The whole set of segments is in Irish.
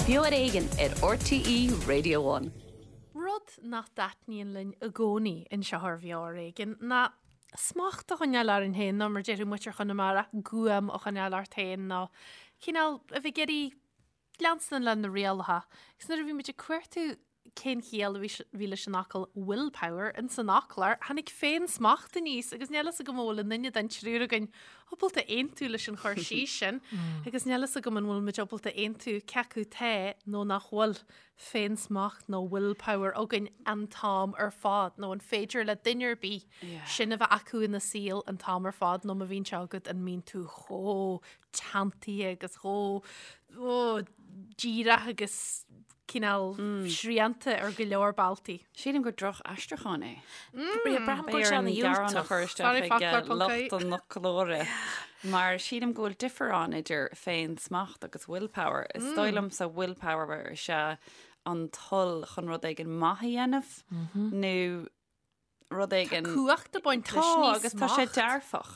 Beo ar Éigean ar RTÉ Radio One. Rud nach dtaitníonn linn i gcónaí anseo ar Bheo ar Éigean ná smacht a choinneáil orainn féin nó mar déarfadh muintir Chonamara, guaim a choinneáil ort féin nó cineál a bheith ag iarraidh leanstan le na rialacha. Agus nuair a bhí muid ag cuartú cén chiall a bhí leis an fhocal willpower in san fhoclóir, tháinig féin-smacht aníos agus níl fhios agam an bhfuil aon duine den triúr againn ábalta aontú leis an chur síos sin agus níl fhios agam an bhfuil muid ábalta aontú cé acu tá nó nach bhfuil féin-smacht nó willpower againn an t-am ar fad nó an féidir le duine ar bith sin a bheith acu ina saol an t-am ar fad nó má bhíonn sé agat an mbíonn tú chomh teanntaithe agus chomh díreach agus cineál srianta ar go leor bealtaí. Sílim gur droch-aistriúchán é. Braithim go bhfuil sé ana-dhiúltach. a chur isteach ag lucht an fhoclóra mar sílim go bhfuil difear ann idir féin-smacht agus willpower. Is dóigh liomsa willpower is ea an toil chun rud éigin maith a dhéanamh nó rud éigin. Tá cumhacht ag baint leis, ní smacht. Tá, agus tá sé dearfach.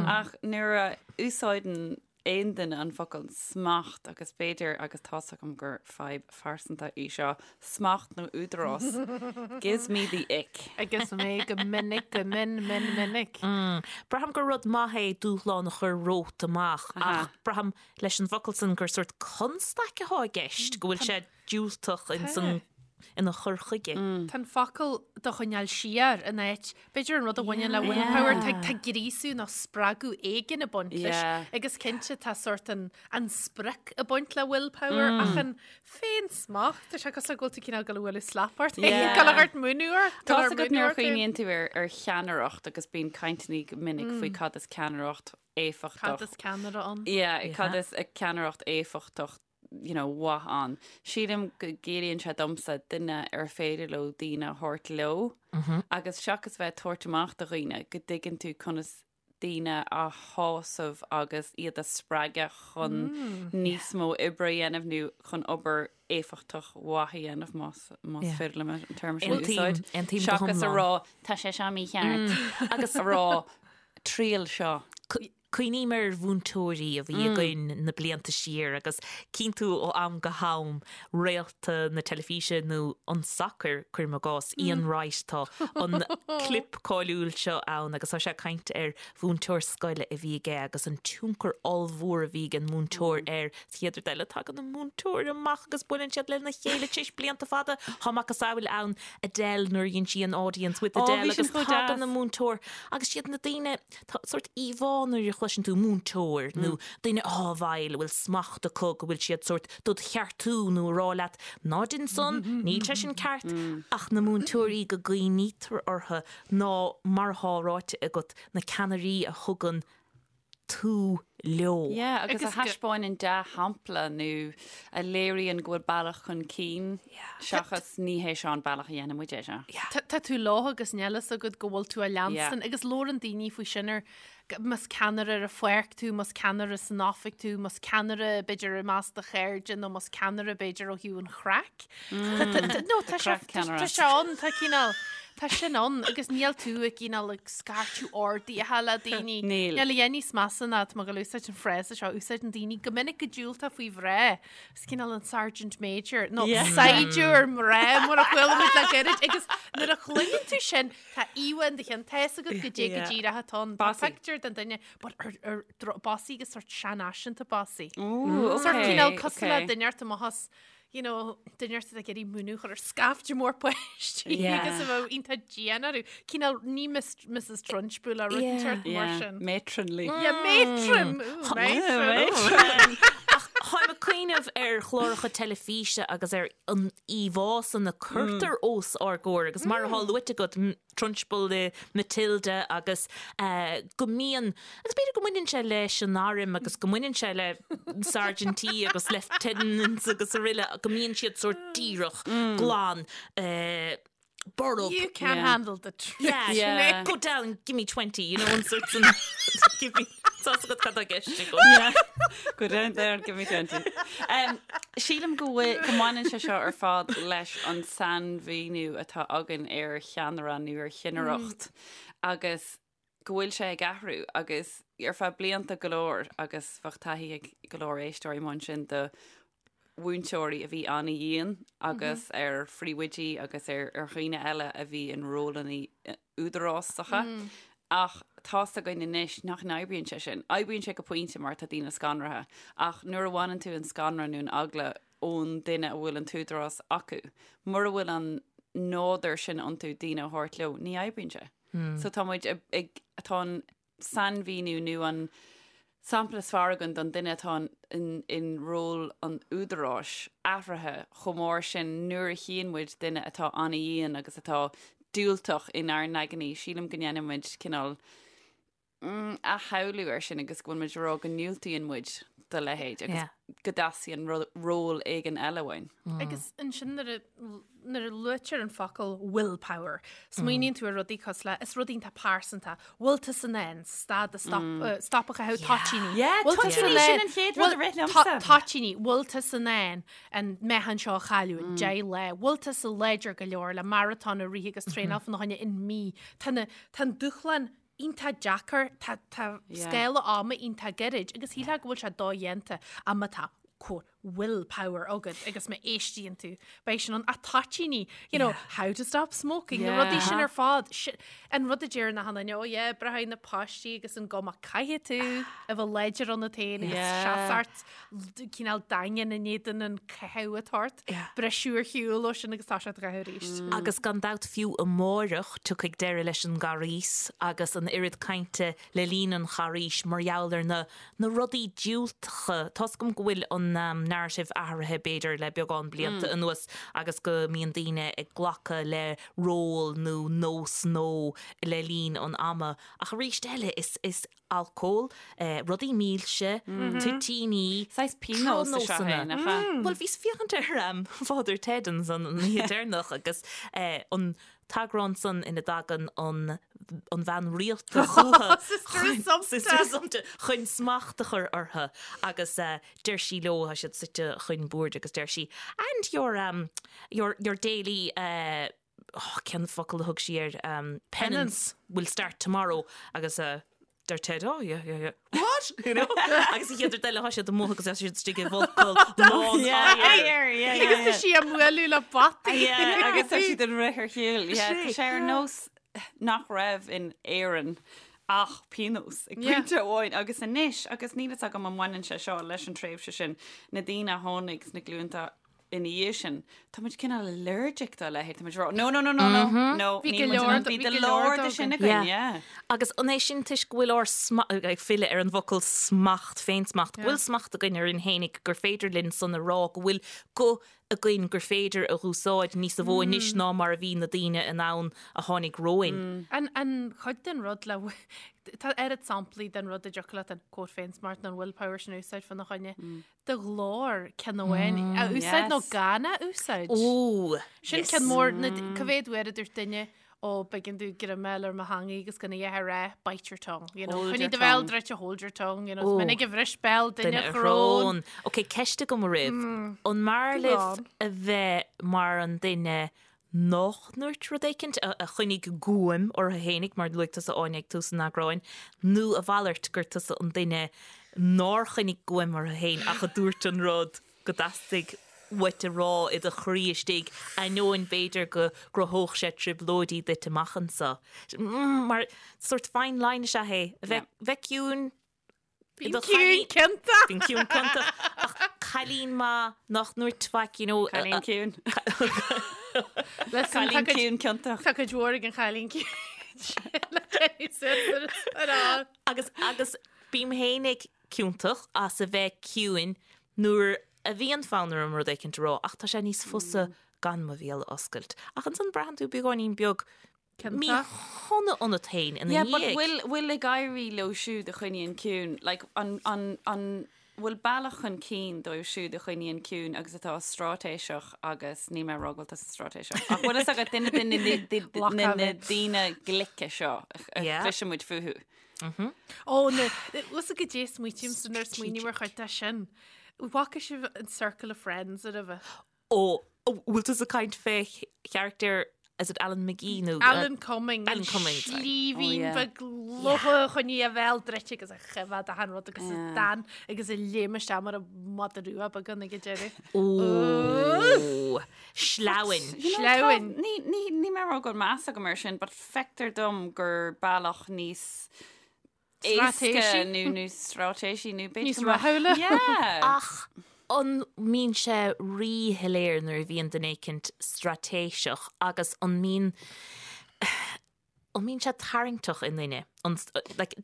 Ach nuair a úsáideann aon duine an focal smacht agus b'fhéidir, agus tá's agam gur fadhb phearsanta í seo, smacht nó údarás, gives me the ick. Agus mé go minic, go min, min, minic. Braithim gur rud maith é dúshlán a chur romhat amach ach braithim leis an bhfocal san gur sórt constaic atá i gceist, go bhfuil sé diúltach in san ina chur chuige. Tá an focal do choinneáil siar in áit, b'fhéidir an rud a bhaineann le willpower, tá tá gríosú nó spreagadh éigin ag baint leis agus cinnte tá sórt an an sprioc ag baint le willpower ach an féin-smacht, tá sé cosúil le go bhfuil tú cineál ag dul a bhualadh slap ort féin, ag dul a thabhairt múineadh ort, Tá a fhios agat nuair a chuimhníonn tú ar ar cheannaireacht agus bíonn cainteanna go minic faoi cad is ceannaireacht éifeachtach. Cad is ceannaire ann? Yeah, cad is ceannaireacht éifeachtach you know, mhaith ann. Sílim go gciallaíonn sé domsa duine ar féidir leo daoine a thabhairt leo agus seachas bheith ag tabhairt amach do dhaoine, go dtuigeann tú conas daoine a shásamh agus iad a spreagadh chun níos mó oibre a dhéanamh nó chun obair éifeachtach mhaith a dhéanamh más más féidir liom an téarma sin a úsáid. Seachas a rá tá sé seo mícheart agus a rá triail seo. Cuimhním ar mhúinteoirí a bhí againn na blianta siar agus cíonn tú ó am go ham réalta na teilifíse nó an tsacair, cuirim i gcás, Ian Wright, tá an clip cáiliúil seo ann agus tá sé ag caint ar mhúinteoir scoile a bhí aige agus an tionchar ollmhór a bhí ag an múinteoir air. Sa chéad rud eile tagann an múinteoir amach agus buaileann siad lena chéile tar éis blianta fada. Tá macasamhail ann Adele nuair a dhein sí an Audience with Adele agus tagann an múinteoir agus siad na daoine Tá sórt íomhá nuair a chloiseann tú múinteoir nó duine atá i bhfeighil, a bhfuil smacht acu, go bhfuil siad sórt dod cheartú nó a rá leat ná dein san, níl sé sin ceart, ach na múinteoirí go gcuimhnítear orthu ná mar atá ráite agat, na ceannairí a thugann tú leo. Yeah, agus a thaispeáineann dea-shampla nó a léiríonn go bhfuil bealach chun cinn seachas ní hé seo an bealach a dhéanann muid é seo. Tá tú leo agus níl fhios agat go bhfuil tú á leanstan agus labhrann daoine faoi sin ar más ceannaire ar an pháirc tú, más ceannaire san oifig tú, más ceannaire b'fhéidir i measc do chairde nó más ceannaire b'fhéidir ó thaobh an chraic. No, tá sé tá sé ann, tá cineál Tá sin ann agus níl tú ag cineál ag scairteadh orduithe le daoine. Níl. Níl a dhath níos measa ná tá mé ag dul a úsáid an frása seo, úsáideann daoine go minic go diúltach faoi mhná. Is cineál an Sergeant Major nó saighdiúir mná mar a chuala muid le gairid agus nuair a chluineann tú sin tá íomhá in do cheann tá fhios agat goidé go díreach atá ann. Tá pictiúr den duine but ar ar bossy agus sort seanfhaiseanta bossy. Ooh, Sort cineál cosúil le duine ort amach as you know, duine ort ag iarraidh múineadh a chur ar scaifte mór páistí agus a bheith iontach dian orthu. Cineál ní Mrs Trunchbull a rud inteacht mar sin. Matronly. Yeah, matron! Ooh, matron! Ach táim ag cuimhneamh ar chláracha teilifíse agus ar an íomhá san a cuirtear os ár gcomhair agus mar atá luaite agat, Trunchbull i Matilda agus go mbíonn, agus b'fhéidir go mbaineann sé leis an arm agus go mbaineann sé le sergeantí agus lieutenants agus araile, go mbíonn siad sórt díreach, glan, borb. You can't handle the truth. Yeah, yeah. Go down, give me 20, you know, an sort san, give me, tá fhios agat cad tá i gceist agam. Yeah. Go down there and give me 20. Um, sílim go bhfuil, go mbaineann sé seo ar fad leis an sainmhíniú atá againn ar cheannaire nó ar chinnireacht agus go bhfuil sé ag athrú agus ar feadh blianta go leor agus bheadh taithí ag go leor éisteoirí mar sin de. mhúinteoirí a bhí an-dhian agus ar phríomhoidí agus ar ar dhaoine eile a bhí in rólanna údarásacha. Ach tá's againn anois nach n-oibríonn sé sin. Oibríonn sé go pointe mar tá daoine scanraithe. Ach nuair a bhaineann tú an scanradh nó an eagla ón duine a bhfuil an t-údarás acu, mura bhfuil an nádúr sin iontu daoine a thabhairt leo, ní oibríonn sé. So tá muid ag, tá an sainmhíniú nó an sampla is fearr againn don duine atá in ról an údaráis athraithe chomh mór sin nuair a chíonn muid duine atá an-dhian agus atá diúltach inár n-aigne, sílim go ndéanann muid cineál athshamhlú air sin agus go bhfuil muid ag rá go ndiúltaíonn muid do leithéid agus go dteastaíonn ról éigin eile uainn. Agus ansin nuair a nuair a luaitear an focal willpower, smaoiníonn tú ar rudaí cosúil le, is rud iontach pearsanta, bhfuil tusa in ann stad a stop, stop a chaitheamh toitíní. Yeah, Bhfuil tusa toitíní, in sin ann- an chéad rud a bhfuil- rith liomsa. Toitíní, bhfuil tusa in ann an meáchan seo a chailleadh in 10 lá, bhfuil tusa láidir go leor le maratón a rith agus traenáil fána choinne in mí. Tá na, tá an dúshlán iontach deacair, tá, tá scála ama iontach gairid agus shílfeá go bhfuil sé dodhéanta ach má tá quote will power agat agus má éistíonn tú beidh sin ann ach toitíní you know how to stop smoking na rudaí sin ar fad an rud a deir na hanaine oh yeah breathnaigh na páistí agus an gcuma caithfidh tú a bheith láidir ionat féin agus seasamh cineál daingean in éadan an caitheamh atá ort briseadh ar shiúl ó sin agus tá sé á chaitheamh arís. Agus gan dabht fiú amáireach tiocfaidh deireadh leis an gCarghas agus an oiread cainte le linn an Charghais mar gheall ar na na rudaí diúltacha. Tá's agam go bhfuil an narrative athraithe b'fhéidir le beagán blianta anuas agus go mbíonn daoine ag glacadh le ról nó nós nó le linn an ama ach arís eile is is alcól, rudaí milse, toitíní, Saghas pionós is ea é, nach ea? Bhuel bhíos ag féachaint ar Father Ted ansan an oíche deireanach agus an t-eagrán san ina dtagann an an bhean rialta chucu Sister Assumpta. chun smacht a chur orthu agus deir sí leo, tá siad suite chun boird agus deir sí, and your um your your daily uh oh cén focal a thug sí air um penance will start tomorrow agus uh deir Ted, oh yeah yeah yeah what you know agus an chéad rud eile tá siad amuigh agus tá siad istigh i bhfolcadh lán oighir. Agus tá sí á mbualadh le bataí. Yeah, agus tá siad ag rith ar shiúl. Yeah, tá sé ar nós nach raibh in Éirinn ach pionós ag pointe amháin agus anois agus níl fhios agam an mbaineann sé seo leis an tréimhse sin na daoine a tháinig sna glúnta ina dhiaidh sin, tá muid cineál allergic dá leithéid, tá muid ag rá, no, no, no, no, no, no, Bhí níl go muid in leor ann, bhí bhí go go leor leor de de sin againn. againn, Yeah. yeah. Agus an é sin toisc go bhfuil ár sma-, ag filleadh ar an bhfocal smacht, féinsmacht, go bhfuil smacht againn orainn fhéinig gur féidir linn san a rá, go bhfuil guth againn gur féidir a dh'úsáid níosa mhó anois ná mar a bhí na daoine in ann a tháinig romhainn. An, an chuid den rud le, tá oiread samplaí den rud a dtiocfadh leat an quote féinsmacht nó an willpower sin a úsáid fána choinne. do ghlór ceann amháin a úsáid nó gan a úsáid. Ó, Sin ceann mór, na, cá mhéad uair a dúirt duine ó b'éigean domh greim a fháil ar mo theangaidh agus gan a dhath a rá, bite your tongue, you know, Hold coinnigh your do bhéal tongue. druidte, hold your tongue, you know, is minic a bhris béal duine Duine a a shrón. shrón. Ok, ceist agam oraibh. An mb'fhearr Go libh on. a bheith mar an duine nách ndúirt rud éicint, a choinnigh guaim orthu fhéinig, mar luaigh tusa Áine ag tús an eagráin, nó a mhalairt, gur tusa an duine nár choinnigh guaim orthu fhéin ach a dúirt an rud go dteastaigh uait a rá i do chroí istigh, ainneoin b'fhéidir go gcruthódh sé trioblóidí duit amach anseo. Mar sórt fine line is ea é, a bheith ciúin, Bím ciúin ciontach. Bím ciúin ciontach. Ach cailín maith nach ndúirt faic, you know. Cailín ciúin. Listen, Cailín ciúin ciontach. Tá cuid mhór ag an chailín ciúin. Le Jenny Simpson ar an. Agus agus bím fhéinig ciontach as a bheith ciúin nuair a bhíonn fonn orm rud éicint a rá ach tá sé níos fusa gan mo bhéal a oscailt. Ach ansan braitheann tú beagáinín beag Míshona ionat féin ina Yeah, but dhiaidh. bhfuil, bhfuil ag éirí leo siúd a choinníonn ciúin, like, an, an, an, bhfuil bealach chun cinn dóibh siúd a choinníonn ciúin agus atá straitéiseach agus níl mé ag rá go bhfuil tusa straitéiseach, ach bhfuil fhios agat duine de na, de, de, na, na daoine glice seo a Yeah. chloiseann muid fúthu. Ó, na, bhfuil fhios agat goidé a smaoitímse nuair a smaoiním ar chuid de sin. Bhfaca sibh an Circle of Friends roimhe? Ó, bhfuil tusa ag caint fé charachtar Is it Alan McGee nó Alan Cumming Alan Cumming, sorry. Slíbhín Oh, yeah. beag lotha a choinnigh a bhéal druidte agus a choimhead achan rud agus a d'fhan agus a léim isteach mar an madadh rua beag ann ag an deireadh. Ó, sleamhain. You know, Sleamhain. tá- Ní ní ní mé rá go bhfuil meas agam air sin, but feictear dom gur bealach níos éasca Straitéisí. nó níos straitéisí nó b'fhéidir Níos go mbeadh- rathúla. Yeah. Ach an mbíonn sé ríshoiléir nuair a bhíonn duine éicint straitéiseach agus an mbíonn an mbíonn sé tarraingteach i nduine? An, like,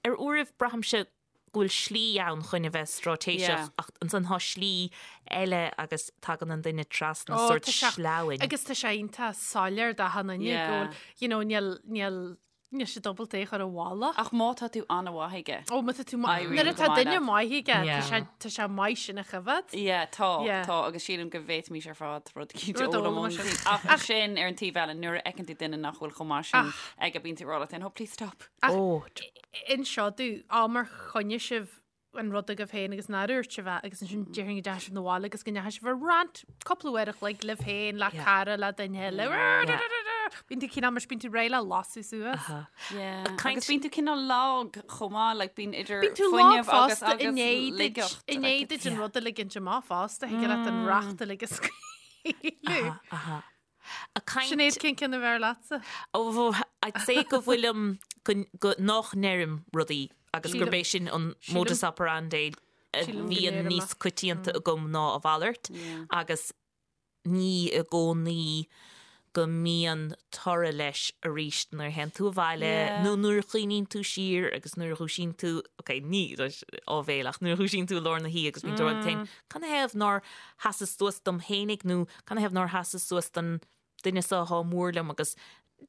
ar uairibh braithimse go bhfuil slí ann chun a bheith straitéiseach Yeah. ach ansan tá slí eile agus tagann an duine trasna Ó, sórt tá sé- sleamhain. Agus tá sé iontach soiléir d'achan duine Yeah. go bhfuil, you know, níl, níl, Níl sé dúbalta é a chur i bhfolach. Ach má tá tú an-mhaith aige. Ó, má tá tú maith. Éiríonn Nuair go atá maith duine leat. maith aige, tá Yeah. sé, tá sé maith sin a choimhead. Yeah, tá, Yeah. tá, agus sílim go bhféadfaimis ar fad rud eicínt a Rud a fhoghlaim fhoghlaim ón sin. taobh. Ach sin ar an taobh eile, nuair a fheiceann tú duine nach bhfuil chomh maith sin aige, bíonn tú ag rá leat féin, oh, please stop. Ó, Inis domh, am ar choinnigh sibh an rud agaibh féin agus nár dhúirt sibh é agus ansin déarfainn go dteachaigh sibh 'na bhaile agus go ndeachaigh sibh ar rant cúpla uair a chloig libh féin, le cara, le duine eile. Bíonn tú cineál mar bíonn tú réidh le lasadh suas. Yeah. caint- Agus bíonn tú cineál lag chomh maith, like bíonn idir Bíonn tú lag fuinneamh agus fosta i agus ndiaidh duit laigeacht. i ndiaidh duit an rud a ligint amach fosta, thig leat an racht uilig a scaoileadh. aha. A caint Sinéad, cén ceann a bhfearr leatsa? Ó, I'd say go bhfuilim go, go, nach ndeirim rudaí agus Sílim- gurb é sin an sílim- modus operandi a sílim go bhíonn ndeirim níos é. coitianta agam ná a mhalairt agus ní i gcónaí go mbíonn toradh leis arís nuair a théann tú abhaile Yeah. nó nuair a chuimhníonn tú siar agus nuair a dhúisíonn tú, ok, ní áibhéil ach nuair a dhúisíonn tú i lár na hoíche agus bíonn tú ag rá leat féin, canathaobh nár sheasas suas dom fhéinig nó canathaobh nár sheasas suas don duine seo atá mór liom agus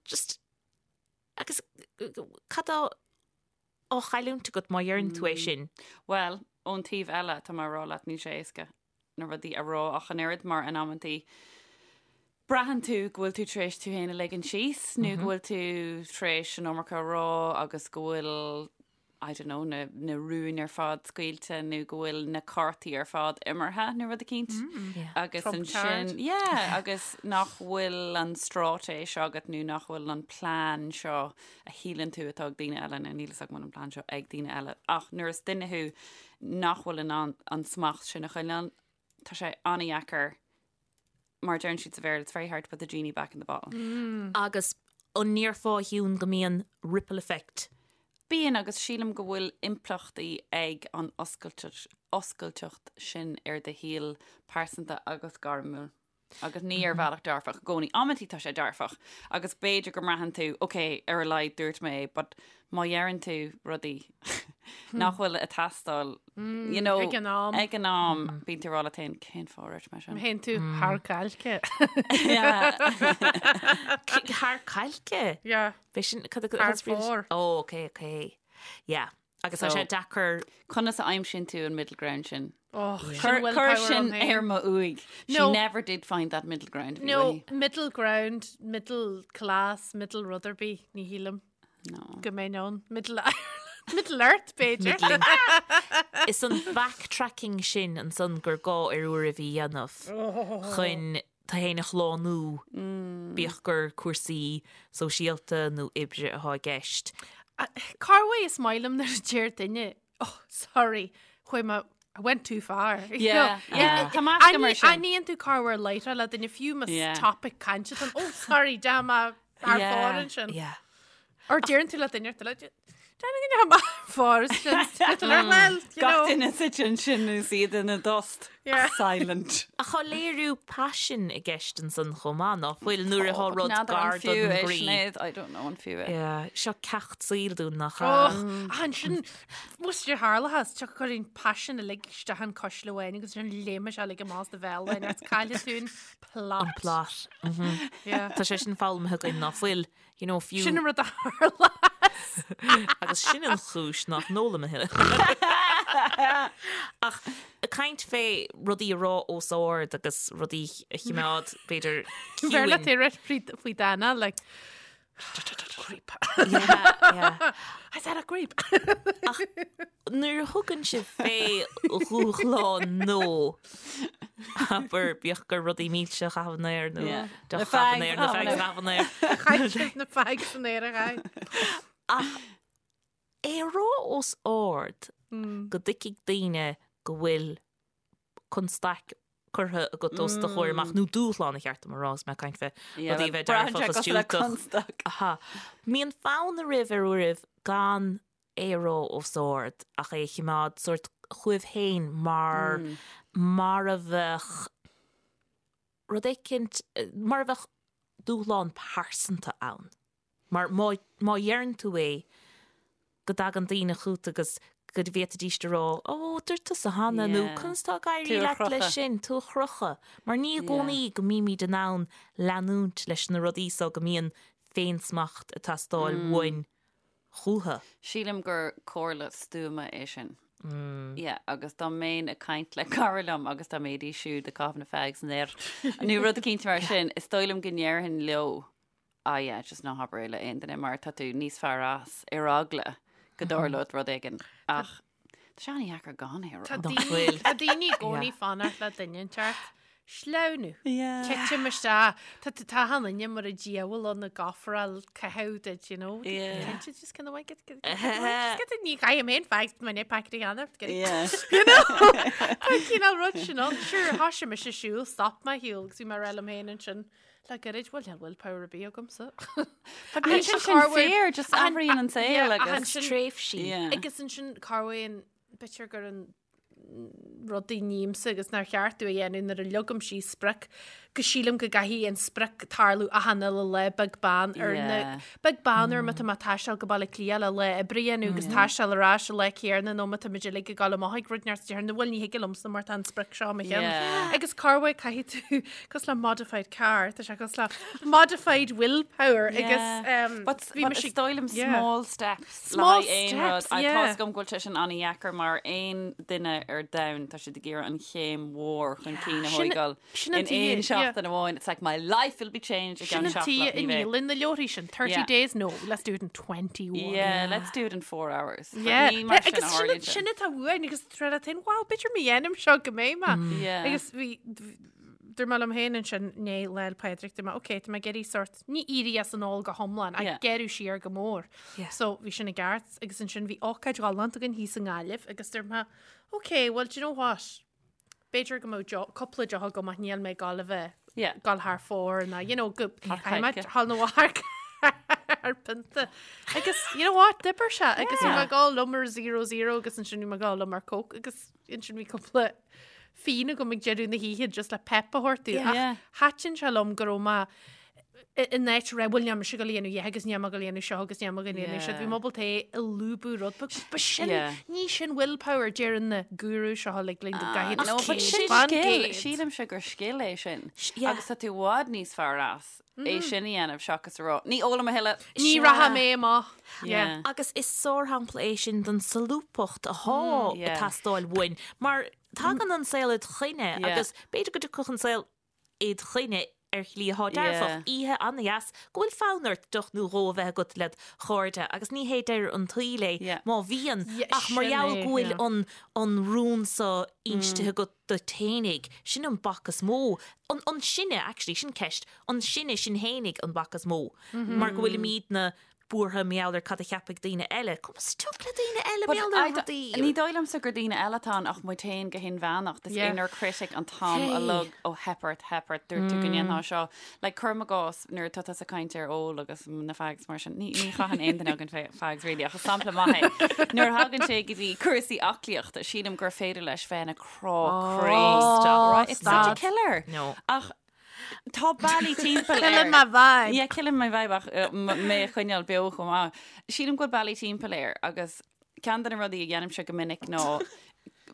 just agus cad tá á chailliúint agat má dheireann tú é sin? Bhuel, ón taobh eile, tá mé ag rá leat, níl sé éasca na rudaí a rá ach an oiread mar in amantaí braitheann tú go bhfuil tú tar éis tú féin a ligean síos nó go bhfuil tú tar éis an iomarca a rá agus go bhfuil I don't know, na, na rúin ar fad scaoilte nó go bhfuil na cártaí ar fad imeartha nó rud eicínt. Yeah. Agus Trump ansin, card. yeah, agus nach bhfuil an straitéis agat nó nach bhfuil an plean seo a shíleann tú atá ag daoine eile nó níl fhios agam an bhfuil an plean seo ag daoine eile. Ach nuair is duine thú nach bhfuil in ann an smacht sin a choinneáil, tá sé an-dheacair mar deireann siad sa Bhéarla, it's very hard to put the genie back in the bottle. Agus an ndéarfá a Shiún go mbíonn ripple effect? Bíonn agus sílim go bhfuil impleachtaí ag an oscailteacht oscailteacht sin ar do shaol pearsanta agus gairmiúil. Agus ní ar bhealach dearfach i gcónaí. Amantaí tá sé dearfach agus b'fhéidir go mbraitheann tú, ok, ar a laghad dúirt mé é, but má dheireann tú rudaí nach bhfuil ag teastáil, you know, Ag an am. ag an am, bíonn tú ag rá leat féin, cén fáth a dúirt mé sin? Théann tú thar cailce. Yeah. Thar cailce? Yeah. B'é sin cad a- Thar cad is brí leis? fóir. Ó, ok, ok. Yeah. Agus tá So- sé deacair Conas a aimsíonn tú an middle ground sin? Oh, Cuir cuir sin ar mo uaigh. She No. never did find that middle ground. bhí No, uaithi. middle ground, middle class, middle rud ar bith, ní shílim No. go mbeinn ann. Middle Ireland, middle Earth, b'fhéidir. middling. Is an backtracking sin ansan gur gá ar uairibh a dhéanamh chun tú féin a shlánú, bíodh gur cúrsaí sóisialta nó oibre atá i gceist. Cá bhfuil is maith liom nuair a deir duine, oh, sorry, chuaigh mé, I went too far. You Yeah, know, yeah. Tá meascadh mar sin. Aithníonn tú cá bhfuil lighter le duine fiú más Yeah. topic cainte an, oh, sorry, deachaigh mé thar Yeah. fóir ansin. Yeah. Or deireann tú le duine ar tú le thar fóir ansin. Well, you Gach know. duine suite ansin is iad ina dtost. Yeah. Silent. Ach tá léiriú paisin i gceist ansan chomh maith, ná fuil nuair atá rud N'fheadar an gar fiú don é, gcroí. Sinéad, I don't know an fiú é. Yeah, seo ceacht saoil dúinn nach Och, ea? ach ansin, muis ar tharlathas, te chuir an paisin uilig isteach an cuisle amháin agus sin léime sé uilig amach as do bhéal amháin, agus cailleann tú an plot. An plot. Yeah. Tá sé sin foghlamtha againn ná fuil, you know, fiú. Sin an rud a tharla. Agus sin an chúis nach n-ólaim a thuilleadh. Ach ag caint fé rudaí a rá os ard agus rudaí a chimeád, b'fhéidir, Bheir le ciúin. tú rith faoi Dana, like, Creep. Yeah, yeah. I said a creep. Ach nuair a thugann sibh fé dhúshlán nó abair bíodh gur rudaí milse a chaitheamh in aer nó Yeah. deoch Na a chaitheamh in aer, na fags fags a chaitheamh in aer. Chaith sibh na fags san aer a chaith. Ach é a rá os ard go dtuigfidh daoine go bhfuil constaic curtha agat os do chomhair amach, nó dúshlán ba cheart dom a rá, is mé ag caint fé rudaí a bheith dearfach is diúltach. Aha. Mbíonn fonn oraibh ar uairibh gan é a rá os ard ach é a chimeád sórt chugaibh féin mar mar a bheadh rud éicint, mar a bheadh dúshlán pearsanta ann. Mar má, má dheireann tú é, go dtagann daoine chugat agus go bhféadfaidís a rá, Ó, dúirt tusa cheana, nó Yeah. Conas tá ag éirí Tú a leat leis chrochadh. sin, tú a chrochadh. Mar ní i Yeah. gcónaí go mbímid in ann leanúint leis na rudaí so go mbíonn féinsmacht ag teastáil uainn chucu. Sílim gur comhairle stuama é sin. Yeah, agus dá mbeinn ag caint le cara liom agus dá mbeidís siúd ag caitheamh na fags san aer nó rud eicínt mar sin, is dóigh liom go ndéarfainn leo, Ah yeah, just ná habair é le aon duine mar tá tú níos fearr as ar eagla go dtarlódh rud éigin. Ach tá sé an-dheacair gan é a rá. Tá Nach daoine bhfuil? tá daoine i gcónaí fanacht le duine inteacht. Sleamhnú. Titim isteach. Tá tá tá an duine mar an diabhal ann ag ofráil caitheamh duit, you know. Yeah. Cinnte just kind of like get get get just get ní chaithim aon fags my net packet a dhéanamh. Get it. Yeah. You know? Tá cineál rud sin ann. Sure, thoisigh mise siúl, stop mé siúl agus bhí mé ag rá liom féin ansin. Le gairid, bhuel, níl willpower ar bith agamsa. But níl sé sin fair, just athraíonn an saol agus Tréimhsí. Yeah. Agus ansin corruair b'fhéidir gur an rudaí nímsa agus nár cheart domh a dhéanamh nuair a leagaim síos sprioc go sílim go gcaithfidh an sprioc tarlú achan uile lá beag beann ar na Yeah. beag beann ar má tá mé ag taisteal go Baile Átha Cliath le lá oibre a dhéanamh agus taisteal ar ais an lá céanna nó má tá muid uilig ag dul amach ag rud neart déarfainn bhuel ní thig liomsa mar tá an sprioc seo i mo cheann. Yeah. Agus corruair caithfidh tú cosúil le modified car, tá sé cosúil le modified willpower agus um, But, bhí but mise- is dóigh liom yeah. small steps le Small haghaidh aon rud. steps, I yeah. Tá a fhios agam go bhfuil sé sin an-dheacair mar aon duine ar domhan tá siad ag iarraidh an chéim mhór chun cinn a Sin- thógáil sin an in tuige, aon yeah. seachtain amháin. It's like my life will be changed i Sin gceann an seachtain tuige ní i bheidh. ndíolann na leabharthaí sin 30 Yeah. days no let's do it in 21. Yeah, let's do it in 4 hours. But Yeah. ní mar sin a Agus sin tharlaíonn sé. sin atá uainn agus tréna tain wow b'fhéidir má dhéanaim seo go mbeidh mé. Yeah. Agus bhí dúirt mé liom féin ansin né Lá 'le Pádraig dúirt mé ok tá mé ag iarraidh sort ní éirí as an ól go hiomlán ach Yeah. gearradh siar go mór. Yeah. So bhí sin i gceart agus ansin bhí ócáid ghalánta againn thíos i nGaillimh agus dúirt mé ok well do you know what b'fhéidir go mbeadh deoch- cúpla deoch agam ach níl mé ag gabháil a bheith Yeah. gabháil thar fóir ná you know go Thar caithfidh mé coirce. thall nó thar thar pionta. Agus you know what d'oibir sé agus bhí mé ag gabháil liom ar 00 agus ansin bhí mé ag gabháil liom ar Coke agus ansin bhí cúpla fíon agam ag deireadh na hoíche just le pep a thabhairt domh. Yeah. Ach thaitin sé liom go raibh mé i- in áit rá bhuel níl mise ag gabháil a dhéanamh a dhath agus níl mé ag gabháil a dhéanamh seo agus níl mé ag gabháil a dhéanamh seo. Yeah. Bhí mé ábalta é a lúbadh rud beag. Ba sin Yeah. ní sin willpower deireann na guru seo uilig linn go gcaithfidh Ah, No, tú but sin céad fan scil. gcéad. Sílimse gur scil é sin. yeah. Agus tá tú i bhfad níos fearr as é sin a dhéanamh seachas a rá. Ní ólaim a thuilleadh. Ní Sea. rachaidh mé amach. Yeah. Yeah. Agus is sárshampla é sin den solúbthacht atá yeah. ag teastáil uainn, mar tagann an saol id choinne Yeah. agus b'fhéidir go dtiocfadh an saol id choinne ar shlí atá dearfach, Yeah. oíche an-dheas, go bhfuil fonn ort deoch nó dhó a bheith agat led chairde agus ní hé deireadh an tsaoil é Yeah. má bhíonn, Yeah, ach mar sin gheall é, go bhfuil yeah. an an rún so instithe agat duit fhéinig, sin an bac is mó, an an sinne actually, sin ceist, an sinne sinn fhéinig an bac is mó, mar go bhfuilimidne buartha mar gheall ar cad a cheapfaidh daoine eile. Conas tiocfaidh le daoine eile mar gheall ar rudaí? Ní dóigh liomsa gur daoine eile atá ann ach muid féin go hinmheánach. This Yeah. inner critic an t-am Hey. uilig ó theip ort, theip ort, dúirt tú go ndéanfá seo. Like, cuirim i gcás nuair atá tusa ag caint ar ól agus na fags mar sin, ní, ní chaitheann aon duine againn fa- fags really ach is sampla maith é. Nuair a thagann sé go dtí cúrsaí aclaíochta, sílim gur féidir leis bheith ina crá croí. Stop. Right? It's such a Stop. killer. No. Ach tá bealaí timpeall Killing air. my vibe. Yeah, killing my vibe ach uh, m- mé a choinneáil beo chomh maith. Sílim go bhfuil bealaí timpeall air agus ceann de na rudaí a dhéanaimse go minic ná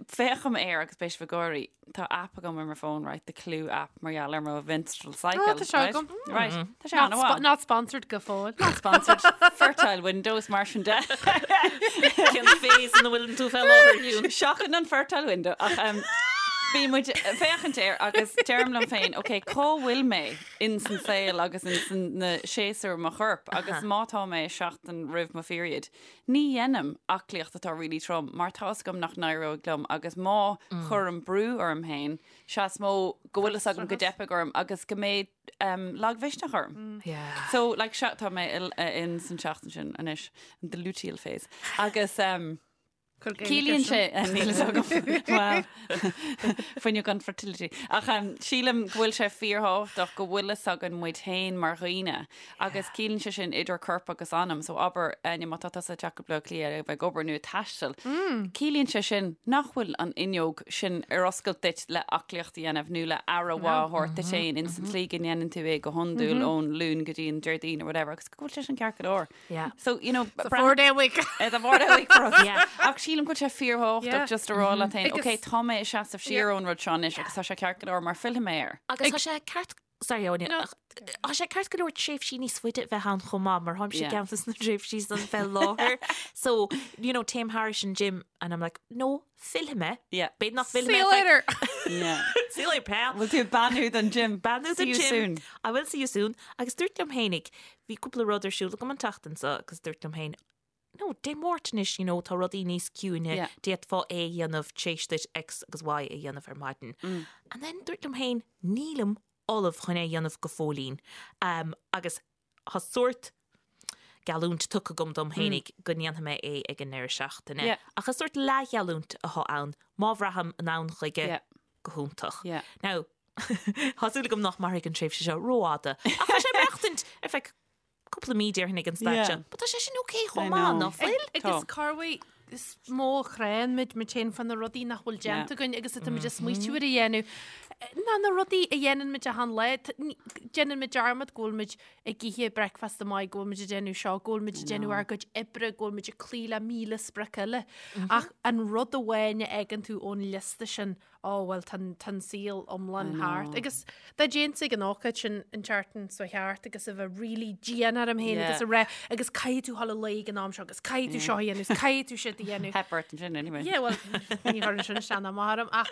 féachaim air agus beidh sibh ag gáirí. Tá app agam ar mo phone, right, the Clue app mar gheall ar mo menstrual cycle. Oh, tá sé right? agam. Right, tá sé Not, an-mhaith. spo not sponsored go fóill. Not sponsored. Fertile Windows mar sin de. Cén phase ina bhfuil tú fé láthair Hugh? Seachain an fertile window ach um, Bíonn muid ag féachaint air agus deirim liom féin, ok, cá bhfuil mé in san saol agus in san na séasúr mo chorp agus má tá mé seachtain roimh mo pheriod, ní dhéanaim aclaíocht atá really trom mar tá fhios agam nach n-éireoidh liom agus má chuirim brú orm féin, sea is mó go bhfuil fhios agam go dteipfidh orm agus go mbeidh lagmhisneach orm. Yeah. So, like, sea, tá mé in san seachtain sin anois, the luteal phase. Agus um, Ciallaíonn sé níl fhios agam well fuinneog an fertility. Ach um, sílim go bhfuil sé fíorthábhachtach go bhfuil fhios againn muid féin mar dhaoine agus ciallaíonn sé sin idir corp agus anam, so abair Áine má tá tusa ag teacht go Baile Átha Cliath a bheith ag obair nó ag taisteal, ciallaíonn sé sin nach bhfuil an fhuinneog sin ar oscailt duit le aclaíocht a dhéanamh nó le aire mhaith a thabhairt duit féin in san tslí go ndéanann tú é go hiondúil ón Luan go dtí an Déardaoin or whatever agus go bhfuil sé sin ceart go leor. Yeah. So, you know, It's a four day week. It's a four day week for us. Yeah. Ach sílim go bhfuil sé fíorthábhachtach Yeah. just a rá leat féin, Agus- ok, tá mé ag seasamh siar ón rud seo anois agus tá sé ceart go leor mar fillfidh mé air. Agus tá sé ceart Sorry, Áine. No. ach Tá sé ceart go leor tréimhsí níos faide a bheith ann chomh maith mar tháimse Yeah. ceann de na tréimhsí san fé láthair. So, you know, téim thairis an gym and I'm like, no, fillfidh mé. Yeah. B'fhéidir nach bhfillfidh See mé you ar feadh- later. Yeah. See you later, pal. Bhfuil tú ag beannú don gym? Beannú See don you gym. soon. I will see you soon. Agus dúirt liom fhéinig, bhí cúpla rud ar siúl agam an tseachtain seo agus dúirt liom féin, no, Dé Máirt anois, you know, tá rudaí níos ciúine, Yeah. d'fhéadfá é a dhéanamh tar éis duit X agus Y a dhéanamh ar maidin. Mm. And then dúirt liom féin, nílim ullamh chun é a dhéanamh go fóillín. Um, agus tá sórt geallúint tugtha agam dom fhéinig go ndéanfaidh mé é ag an ndeireadh seachtaine. Yeah. Ach is sórt leathgheallúint atá ann, má bhraithim in ann chuige Yeah. go hiontach. Yeah. Now, tá súil agam nach mairfidh an tréimhse seo rófhada. Ach tá sé ag maireachtaint ar feadh cúpla mí déarfainn ag an staid Yeah. seo. But tá sé sin ok I chomh maith, know. nach bhfuil? Agus Tá. corruair is mó a chránn muid muid féin fá na rudaí nach bhfuil déanta againn agus atá muid ag smaoitiú ar a dhéanamh. Ná na rudaí a dhéanann muid achan lá, t- ní- déanann muid dearmad go bhfuil muid ag ithe bricfeasta maith, go bhfuil muid ag déanamh seo, go bhfuil muid ag déanamh ár gcuid oibre, go bhfuil muid ag cloí le 1000 sprioc eile. Ach an rud amháin a fhágann tú ón liosta sin, ó bhuel tá an tá an saol iomlán thart. Agus dá dtéinnse ag an ócáid sin an tseachtain seo thart agus a bheith really dian orm féin Yeah. agus a rá agus caithfidh tú dhul a luí ag an am seo agus caithfidh tú seo a dhéanamh agus caithfidh tú siúd a dhéanamh. Theip ort ansin anyway. Yeah, well, ní chuireann sin isteach ná amach orm ach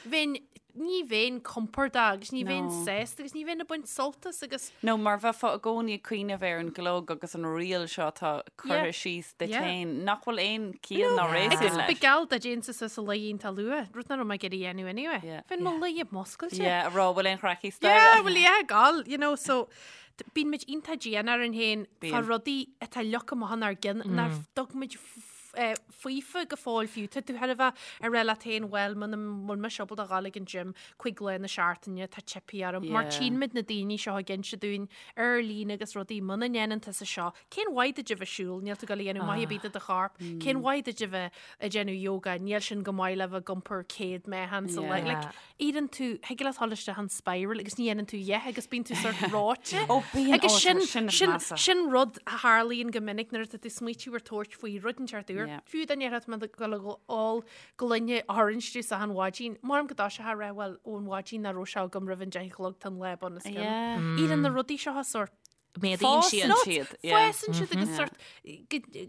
bheinn ní bheinn compordach agus ní bheinn No. sásta agus ní bheinn ag baint sult as agus No, mar bheifeá i gcónaí ag cuimhneamh ar an gclog agus an riail seo atá curtha Yeah. síos duit Yeah. féin, nach bhfuil aon chiall ná réasún Agus leis. ba gheall dá dtéinnse suas a luí iontach luath, rud nach raibh mé ag iarraidh a dhéanamh anyway. Yeah. Bheinn mo luí ag muscailt. Yeah, a rá bhfuil aon chraic Yeah, staighre. well yeah, gal, you know, so t- bíonn muid iontach dian orainn féin fá Bíonn. rudaí atá leagtha amach inár gcinn nár dtug muid f- eh, faofa go fóill fiú. Tá tú thar a bheith ag rá leat féin, bhuel, muna bhfuil mise ábalta a dhul ag an gym cuig lá na seachtaine, tá teipthe orm. Mar Yeah. tchíonn muid na daoine seo ag inse dúinn ar líne agus rudaí muna ndéanann tusa seo. Cén mhaith duit a bheith ag siúl, níl tú ag dul a dhéanamh maith ar bith do do chorp. Cén mhaith duit a bheith ag déanamh yoga, níl sin go maith le bheith ag iompar 100 meáchan sa lá. Yeah. Like, éiríonn tú, thig leat dhul isteach an spiral agus ní dhéanann tú a dhath agus bíonn tú sort reoite. Ó, bíonn, Agus ó, sin, sin is sin, measa. sin rud a tharlaíonn go minic nuair atá tú ag smaoitiú ar tabhairt faoi rud inteacht úr. Yeah. Fiú dá ndéarfá tá mé ag dul ag ól gloine orange juice achan mhaidin. Maram go dtosófá a rá, bhuel, ón mhaidin nach raibh sé agam roimh an 10 a chlog tá an lá bunoscionn. Yeah. Éiríonn na rudaí seo sort Méadaíonn siad. Fásann siad. yeah. Fásann siad agus sort go-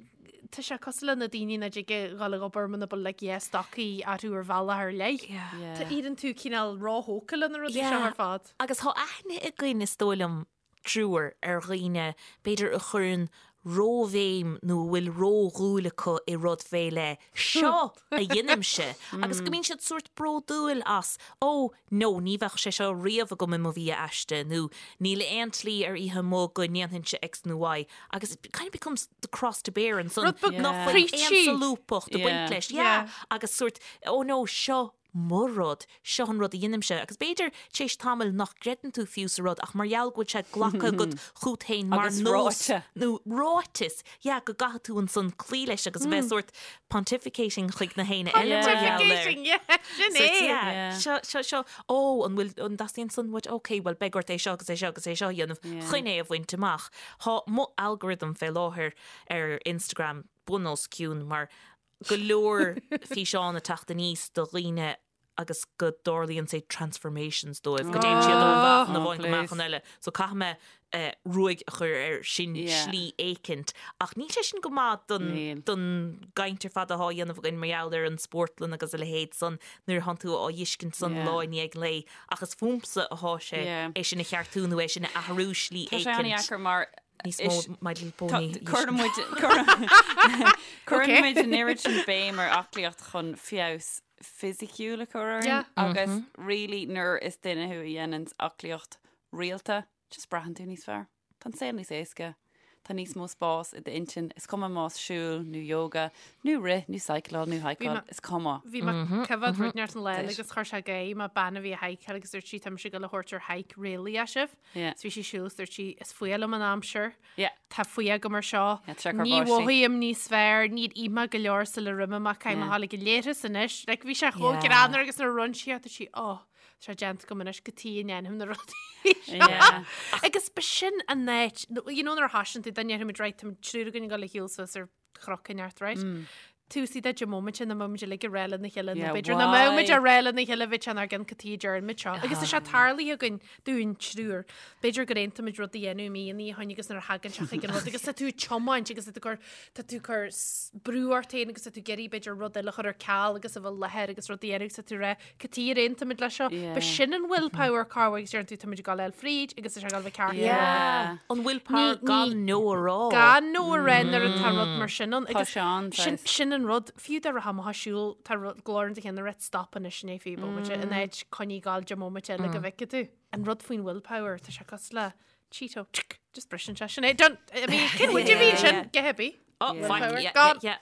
tá sé cosúil le na daoine nach dtig a dhul ag obair muna bhfuil like yeah stocaí orthu ar bhealach ar leith. Yeah. Yeah. Tá éiríonn tú cineál róthógtha le na rudaí seo Yeah. ar fad. Agus tá aithne againn is dóigh liom triúr ar dhaoine b'fhéidir a chuireann róbhéim nó a bhfuil ródhúil acu i rud fé leith, seo a dheinimse agus go mbíonn siad sórt bródúil as, ó no ní bheadh sé seo riamh agam i mo bhia aiste nó níl aon tslí ar oíche amuigh go ndéanfainnse X nó Y agus it kind of becomes the cross to bear ansan Rud beag nach bhfuil aon preachy. solúbthacht ag baint Yeah. leis. Yeah. Yeah. Agus sórt, oh no, seo mo rud, seo an rud a dheinimse. Agus b'fhéidir tar éis tamaill nach gcreideann tú fiú sa rud ach mar gheall go bhfuil sé glactha agat chút féin mar Agus nós ráite. nó ráiteas, yeah, go gcaithfidh tú ansan cloí leis agus a bheith sórt pontificating chuig na héinne eile mar gheall air. Pontificating, yeah, sin Sórt, é. yeah, Yeah. seo, seo, seo, ó, an bhfuil, an dteastaíonn san uait? Ok, bhuel, beidh ort é seo agus é seo agus é seo a dhéanamh Yeah. chun é a bhaint amach. Tá mo algorithm fé láthair ar Instagram bun os cionn mar go leor físeán ag teacht aníos do dhaoine. agus go dtarlaíonn say transformations dóibh, go dtéann siad ó mheáchan amháin go meáchan eile. So caithfidh mé ruaig a chur air sin slí éicint. Ach níl sé sin go maith don don gcaint ar fad atá á dhéanamh againn mar gheall ar an spórtlann agus a leithéid san nuair atánn tú á dh'fheiscint san lá i ndiaidh lae. Ach is fúmsa atá sé é sin a cheartú nó é sin a athrú slí éicint. Tá sé an-deacair mar níos mó My Little Pony. Cuireann muid cuireann muid an oiread sin béim ar aclaíocht chun feabhas fisiciúil a chur orainn agus really nuair is duine thú a dhéananns aclaíocht rialta, just braitheann tú níos fearr. Tá an saol níos éasca. Tá níos mó spás i d'intinn. Is cuma más siúl nó yoga nó rith nó cycleáil nó hikeáil, is cuma. Bhí mé coimhéad rud inteacht an lá eile agus chuir sé gáire mé bean a bhí ag hikeáil agus dúirt sí tá mise ag dul a thabhairt ar hike réalaíoch sibh. So bhí sí ag siúl is dúirt sí is fuath liom an aimsir. Tá fuath agam ar seo. Ní mhothaím níos fearr, níor ith mé go leor sula raibh mé amach caithfidh mé a ghabháil ag an leithreas anois. Like bhí sé chomh greannmhar agus nuair a rinne sí é dúirt sí oh Tá sé déanta agam anois cad chuige a ndéanaim na rudaí seo. Agus b'shin an áit, you know nuair a thosaíonn tú, dá ndéarfaimid right, tá triúr againn ag dul a shiúl suas ar chnoc inteacht, right? Tús iad de móimint ina mbeimid uilig ag rá lena chéile nó b'fhéidir nach mbeimid ag rá lena chéile bheadh sé inár gcionn cad chuige a deirimid seo. Agus tá sé tarlaithe againn dúinn triúr. B'fhéidir gur aontaímid rud a dhéanamh mí ina dhiaidh agus nuair a thagann sé chuig an rud agus tá tú ag tiomáint agus tá tú ag cur tá tú ag cur brú ort féin agus tá tú ag iarraidh b'fhéidir rud eile a chur ar ceal agus a bheith láthair agus rud a dhéanamh agus tá tú ag rá Cad chuige ar aontaigh muid leis seo. B'shin an willpower cá bhfuil agus deireann tú tá muid ag dul fríd agus tá sé ag dul a bheith ceart. Yeah. An willpower gan no a rá. Gan no a rá nuair atá rud mar sin ann. Tá sé ann, sin, sin an rud, fiú dá rachfá amach ag siúl, tá rud glór in do cheann ag rá stop anois inné fiú bomaite, in áit coinnigh ag gabháil deich mbomaite eile go bhfeicfidh tú. An rud faoin willpower, tá sé cosúil le Cheeto, tsk, just briseann sé sin é. Done. I mean, cén bhuid a bhí sin? Get happy. Oh, fine, yeah, yeah, yeah.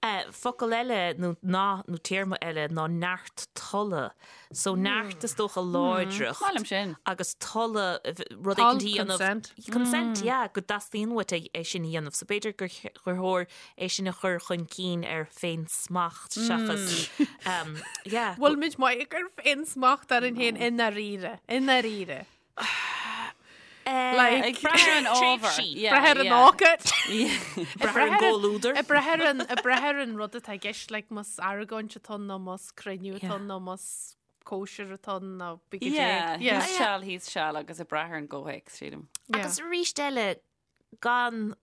Eh, focal eile nó ná nó téarma eile ná neart tola. So neart is dócha láidreacht. Maith liom sin. Agus tola rud éicint a dhéanamh. Consent. Consent, yeah, go dteastaíonn uait é é sin a dhéanamh. So b'fhéidir gur gur chóir é sin a chur chun cinn ar féinsmacht seachas um, yeah. Bhfuil muid maith ag cur féinsmacht orainn féin i ndáiríre, i ndáiríre. Like, Ag brath ar an ábhar. Brath ar an ócáid. Brath ar an gcomhluadar. Ag brath ar an, ag brath ar an rud atá i gceist, like más argóint atá ann nó más cruinniú atá ann nó más cóisir atá ann nó bí go Yeah, thíos seal, thíos seal agus ag brath ar an gcomhthéacs, sílim. Agus arís eile, gan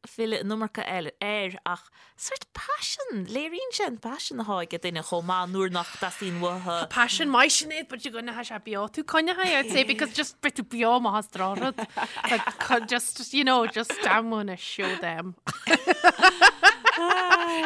filleadh an iomarca air ach sórt paisean, léiríonn sé an paisean atá ag duine chomh maith nuair nach dteastaíonn uathu. Tá paisean maith Sinéad but you're gonna have sé beo tú coinnithe I'd say because just beidh tú beo amach as drochrud. Like, just you know just I'm gonna show them.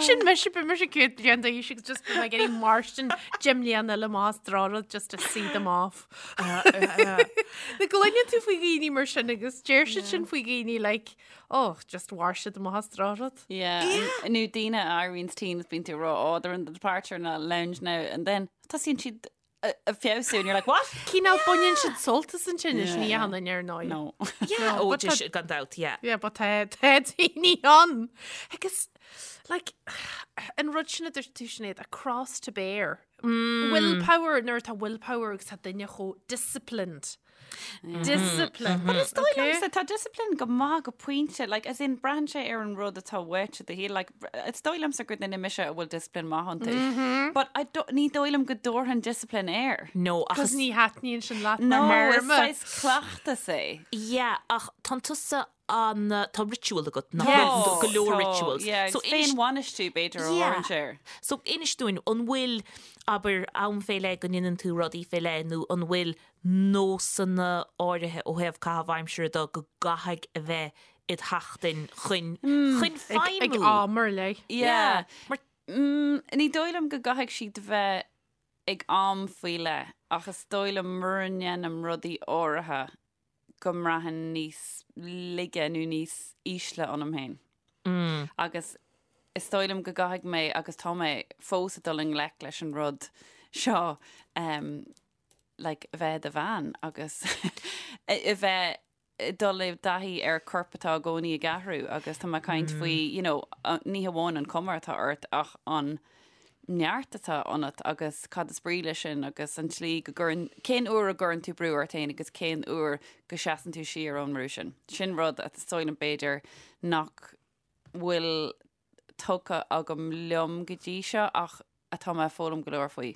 Sin mise beidh mise 100 bliain d'aois agus just beidh mé ag iarraidh mairstin 10 mbliana eile amach as drochrud just to see them off. Na gcluineann tú faoi dhaoine mar sin agus deir siad sin faoi dhaoine like oh just mhair siad amach as drochrud. Yeah, nó daoine a éiríonn tinn is bíonn tú ag rá oh they're in the departure na lounge now and then tosaíonn siad ag feabhsú and you're like what? Cineál baineann siad sult as an tinneas ní hionann ar ndóigh. No. Yeah, oh, but tá- gan dabht, yeah. Yeah, but tá tá daoine ann. Agus like an rud sin a dúirt tú Sinéad, a cross to bear. Willpower, nuair atá willpower agus tá duine chomh disciplined. Discipline. But is dóigh liomsa tá discipline go maith go pointe, like, as in braitheann sé ar an rud atá uait i do shaol, like, is dóigh liomsa gur duine mise a bhfuil discipline maith iontu. But I don't, ní dóigh liom go dtabharfainn discipline air. No, ach Cos is, ní thaitníonn sin leat No, mar is théarma. saghas cleachtas é. yeah, ach tánn tusa an, tá ritual agat, nach Yes. bhfuil? Go leor Tá, rituals. Yeah, So inis, féinbhainistiú b'fhéidir a Yeah. thabharfainnse air. so inis dúinn, an bhfuil, abair, am fé leith go ndéanann tú rudaí fé leith nó an bhfuil nósanna áirithe ó thaobh caitheamh aimsire de go gcaithfidh a bheith id sheachtain chun, chun Ag, ag feidhmiú? am ar leith. Yeah. Mar Ní dóigh liom go gcaithfidh siad bheith ag am faoi leith ach is dóigh liom mura ndéanaim rudaí áirithe go mbraithim níos laige nó níos ísle ionam féin. Agus is dóigh liom go gcaithfidh mé agus tá mé fós ag dul i ngleic leis an rud seo um, like, a bheith i do bhean agus a bheith ag dul i dtaithí ar corp atá i gcónaí ag athrú agus tá mé ag caint faoi, you know, ní hamháin an cuma atá ort ach an neart atá ionat agus cad is brí leis sin agus an tslí go gcuireann, cén uair a gcuireann tú brú ort féin agus cén uair go seasann tú siar ón mbrú sin. Sin rud is dóigh liom b'fhéidir nach bhfuil tugtha agam liom go dtí seo ach atá mé ag foghlaim go leor faoi.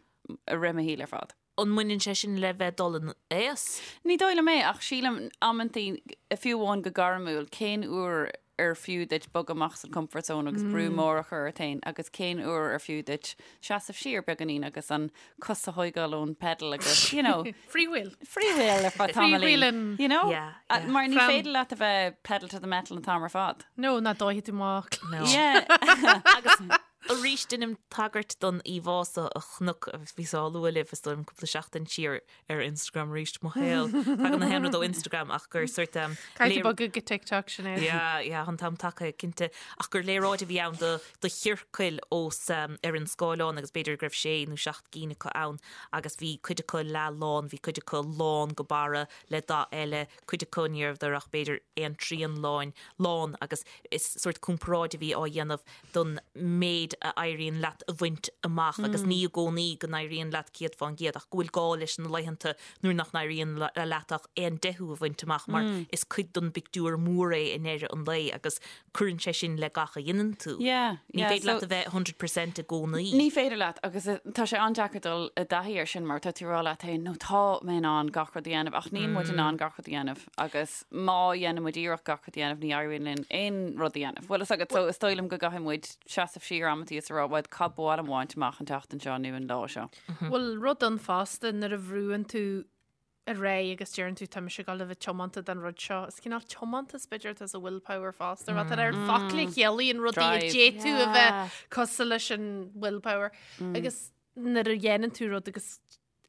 i rith mo shaoil ar fad. An mbaineann sé sin le bheith dul in aois? Ní dóigh liom é, ach sílim amantaí, fiú amháin go gairmiúil, cén uair ar fiú duit bogadh amach as an comfort zone agus brú mór a chur ort féin agus cén uair ar fiú duit seasamh siar beagáinín agus an cos a thóigeáil ón pedal agus, you know. Freewheel. Freewheel ar feadh tamaillín. Freewheeling. You know? Yeah, yeah. Mar ní From- féidir leat a bheith pedal to the metal an t-am ar fad. No, ná dófaidh tú amach. No. Yeah. Agus arís deinim tagairt don íomhá so a chonac agus bhíos á lua libh is dóigh liom cúpla seachtain siar ar Instagram arís mo shaol. Tagann na haon rud ó Instagram ach gur sort um, Caithfidh tú bogadh go TikTok Sinéad. Yeah, yeah, an t-am tagtha cinnte. Ach gur léaráid a bhí ann do, do chiorcail os um, ar an scáileán agus b'fhéidir go raibh sé nó seacht gcinn acu ann agus bhí cuid acu leath lán, bhí cuid acu lán go barra le dath eile, cuid acu ní rabhadar ach b'fhéidir aon trian láin, lán agus is sórt comparáid a bhí á dhéanamh don méid a éiríonn leat a bhaint amach agus ní i gcónaí go n-éiríonn leat 100% ach go bhfuil gá leis na laethanta nuair nach n-éiríonn leat ach aon deichiú a bhaint amach mar is cuid don bpictiúr mór é i ndeireadh an lae agus cuireann sé sin le gach a dhéanann tú. Yeah, Ní yeah, féidir so leat a bheith 100% i gcónaí. Ní féidir leat agus tá sé an-deacair dul i dtaithí air sin mar tá tú ag rá leat féin no tá mé in ann gach rud a dhéanamh ach níl muid in ann gach rud a dhéanamh agus má dhéanann muid iarracht gach rud a dhéanamh ní éiríonn linn aon rud a dhéanamh. Bhfuil fhios agat so is dóigh liom go gcaithfidh muid seasamh siar amantaí is a rá bhuel cad ba mhaith liom a bhaint amach an tseachtain seo nó an lá seo. Bhfuil rud ann fosta nuair a bhrúann tú ar aghaidh agus deireann tú tá mise ag dul a bheith tiomanta don rud seo. Is cineál tiomantas b'fhéidir atá sa willpower fosta, rud ar focail a chiallaíonn rudaí a Drive. d'fhéadfadh a bheith cosúil leis an willpower. Agus nuair a dhéanann tú rud agus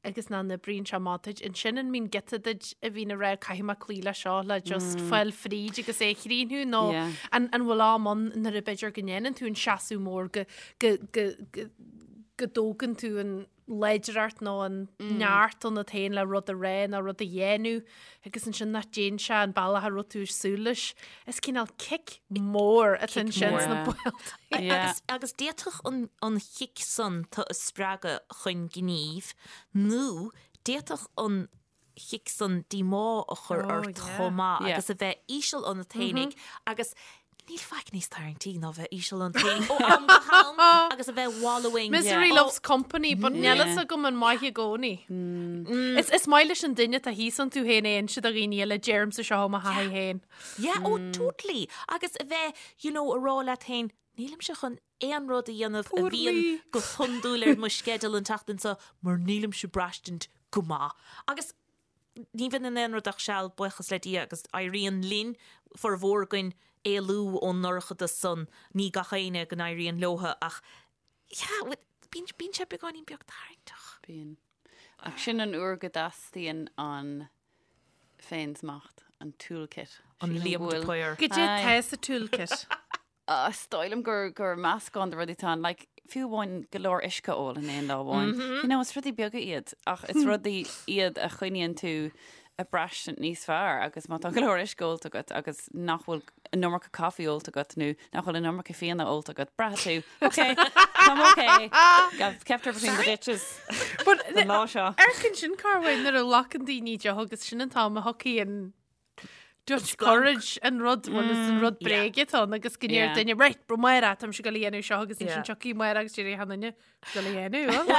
agus nach n-oibríonn sé amach duit, ansin an mbíonn giota duit a bhíonn ag rá caithfidh mé cloí leis seo le just fáil fríd agus é a chríochnú nó Yeah. an an bhfuil am ann nuair a b'fhéidir go ndéanann tú an seasamh mór go go go go go dtógann tú an láidreacht nó an neart ionat féin le rud a rá nó rud a dhéanamh agus ansin nach dtéann sé an bealach a raibh tú ag súil leis. Is cineál cic mór atá ansin sna baolta. Agus, agus d'fhéadfadh an, an chic san tú a spreagadh chun gnímh nó d'fhéadfadh an chic san díomá a chur Oh, ort yeah. chomh maith Yeah. agus a bheith íseal ionat fhéinig agus níl faic níos tarraingtí ná bheith íseal ionat fhéinig ó am go ham agus a bheith wallowing. Misery Oh, loves company, but níl fhios agam an maith i gcónaí. Is, is maith leis an duine atá thíos iontu féin é a inse do dhaoine eile deirimse seo ó mo thaithí féin. Yeah, oh totally. Agus a bheith, you know, a rá leat féin, nílimse chun aon rud a dhéanamh a Poor bhíonn me. go hiondúil ar mo sceideal an tseachtain seo mar nílimse ag braistint go maith. Agus ní bhíonn in aon rud ach seal, buíochas le Dia, agus éiríonn linn, formhór againn, éalú ón ndorchadas san. Ní gach éinne go n-éiríonn leotha ach yeah, bíonn, bíonn sé beagáinín beag tarraingteach. Bíonn. Ach sin an uair go dteastaíonn an féinsmacht, an toolkit. An Sílim Liam go de bhfuil- Paor. Goidé Aye. tá sa toolkit. Ah, Is dóigh liom gur gur meascán de rudaí atá ann, like, fiú amháin go leor uisce a ól in aon lá amháin. You know, is rudaí beaga iad, ach is rudaí iad a choinníonn tú ag braistint níos fearr agus má tá go leor uisce ólta agat agus nach bhfuil an iomarca caife ólta agat nó nach bhfuil an iomarca fíona ólta agat, braithfidh tú, ok, táim ok, I've kept her between the ditches But an lá seo. Amharc ansin Carwyn nuair a ghlacann daoine deoch agus sin an t-am a thiocfaidh an Dutch courage an rud bhuel is an rud bréige atá ann agus go ndeir duine right bro Máire táimse ag dul a dhéanamh seo agus ansin tiocfaidh Máire agus déarfaidh an duine dul a dhéanamh.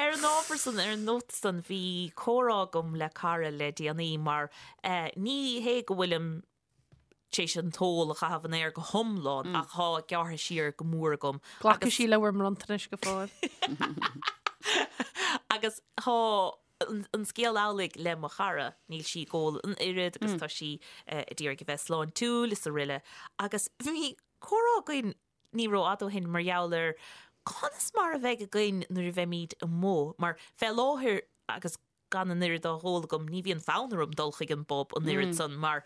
Ar an ábhar san, ar an nóta san, bhí comhrá agam le cara le déanaí mar ní hé go bhfuilim tar éis an t-ól a chaitheamh an aer go hiomlán ach tá gearrtha siar go mór agam. Glacfaidh sí le bhur mbronntanais go fóill. Agus tá an scéal amhlaidh le mo chara, níl sí ag ól an oiread agus tá sí ag iarraidh a bheith sláintiúil is araile agus bhí comhrá againn ní rófhada ó shin mar gheall ar conas mar a bheidh againn nuair a bheimid amuigh mar fé láthair agus gan an oiread á ól agam ní bhíonn fonn orm dul chuig an bpub an oiread san mar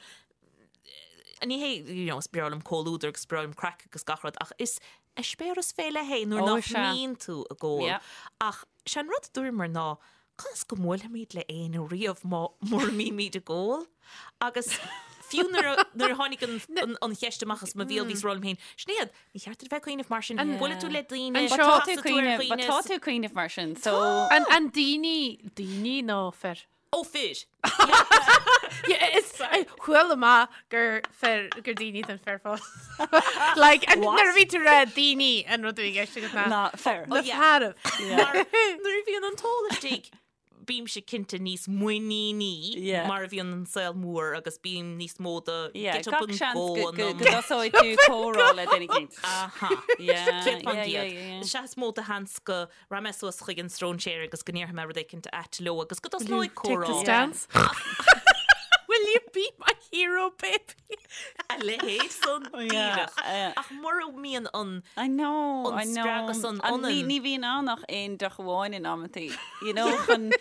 ní hé, you know, is breá liom comhluadar agus is breá liom craic agus gach rud ach is eispéireas fé leith é nuair Ó, nach sea. mbíonn tú ag ól. Yeah. Ach sé an rud a dúramar ná conas go mbuailfimid le éinne riamh má mura mbímid ag ól? Agus fiú nuair a nuair a tháinig an, an, an cheist amach as mo bhéal bhíos ag rá liom féin, Sinéad, ní cheart duit a bheith ag cuimhneamh mar sin, buailfidh tú le daoine, An But seo- tá tú casfaidh tú ar cuimhneamh, but dhaoine tá is- tú cuimhneamh mar sin, so An, an daoine, daoine nó fir? Ó fir! Is chuala mé gur fir gur daoine den fir fós. Like, and nuair a bhí tú rá daoine an rud a bhí i gceist agat ná Ná fir. Na fearaibh. Mar nuair a bhíonn an t-ól istigh, bímse cinnte níos muiníní Yeah. mar a bhíonn an saol mór agus bím níos mó do Yeah, get up gach and seans go go an go um. go dtosóidh tú comhrá le duine éicint. Aha. Yeah, 100 yeah, yeah, yeah. Sea is mó de sheans go Rachaidh mé suas chuig an stróinséir agus go ndéarfaidh mé rud éicint ait leo agus go dtosnóidh Take the comhrá. stance. Will you be my hero, baby? A leithéid san díreach. yeah. Ach mura mbíonn an I know, An I know. spreagadh san An- ní, ionann. ní bhíonn ann ach aon deoch amháin in amantaí. You know, chun...